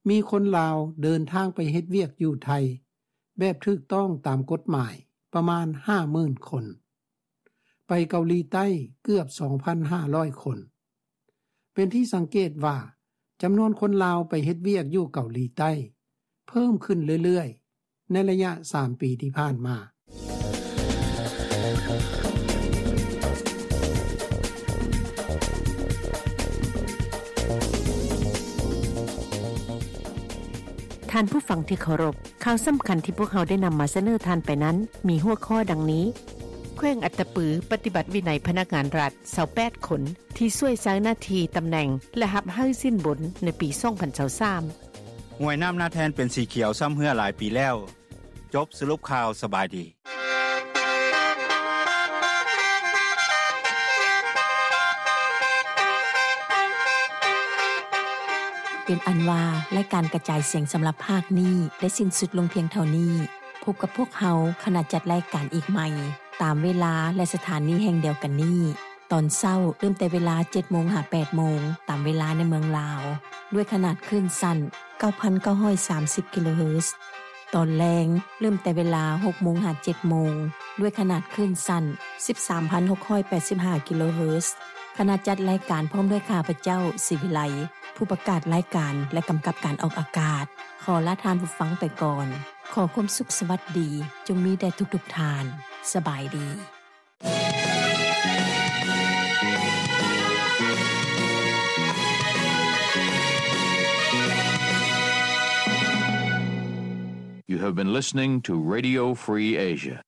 ມີຄົນລາວເດີນທາງໄປເຮັດວຽກຢູ່ໄທແບບຖືກຕ້ອງຕາມກົດໝາຍປະມານຫ້າໝື່ນຄົນ, ໄປເກົາຫຼີໃຕ້ເກືອບສອງພັນຫ້າຮ້ອຍຄົນ. ເປັນທີ່ສັງເກດວ່າ ຈຳນວນຄົນລາວໄປເຮັດວຽກຢູ່ເກົາຫຼີໃຕ້ເພີ່ມຂຶ້ນເລື້ອຍໆ ໃນໄລຍະສາມປີທີ່ຜ່ານມາ. ທ່ານຜູ້ຟັງທີ່ເຄົາລົບ, ຂ່າວສຳຄັນທີ່ພວກເຮົາໄດ້ນຳມາສະເໜີທ່ານໄປນັ້ນ ມີຫົວຂໍ້ດັ່ງນີ້: ແຂວງອັດຕະປືປະຕິບັດວິໄນພະນັກງານລັດຊາວແປດຄົນ ທີ່ຊ່ວຍໃຊ້ໜ້າທີ່ຕຳແໜ່ງ ແລະ ຮັບໃຫ້ສິນບົນໃນປີສອງພັນຊາວສາມ. ຫ້ວຍນ້ຳນາແທ່ນເປັນສີຂຽວຊ້ຳເຮື້ອຫຼາຍປີແລ້ວ. ຈົບສະຫຼຸບຂ່າວ, ສະບາຍດີ. ເປັນອັນວ່າ ລາຍການກະຈາຍສຽງສຳລັບພາກນີ້ໄດ້ສິ້ນສຸດລົງພຽງເທົ່ານີ້. ພົບກັບພວກເຮົາ ຂະນະຈັດລາຍການອີກໃໝ່ ຕາມເວລາ ແລະ ສະຖານີແຫ່ງດຽວກັນນີ້. ຕອນເຊົ້າເລີ່ມແຕ່ເວລາເຈັດໂມງຫາແປດໂມງ ຕາມເວລາໃນເມືອງລາວ ດ້ວຍຂະໜາດຄື້ນສັ້ນເກົ້າພັນເກົ້າຮ້ອຍສາມສິບກິໂລເຮີດ. ຕອນແລງເລີ່ມແຕ່ເວລາຫົກໂມງຫາເຈັດໂມງ ດ້ວຍຂະໜາດຄື້ນສັ້ນສິບສາມພັນຫົກຮ້ອຍແປດສິບຫ້າກິໂລເຮີດ. ຄະນະຈັດລາຍການພ້ອມດ້ວຍຂ້າພະເຈົ້າ ສີວິໄລ ຜູ້ປະກາດລາຍການ ແລະ ກຳກັບການອອກອາກາດ ຂໍລາທ່ານຜູ້ຟັງໄປກ່ອນ. ຂໍຄວາມສຸກສະຫວັດດີ ຈົ່ງມີແດ່ທຸກໆທ່ານ. ສະບາຍດີ. You have been listening to Radio Free Asia.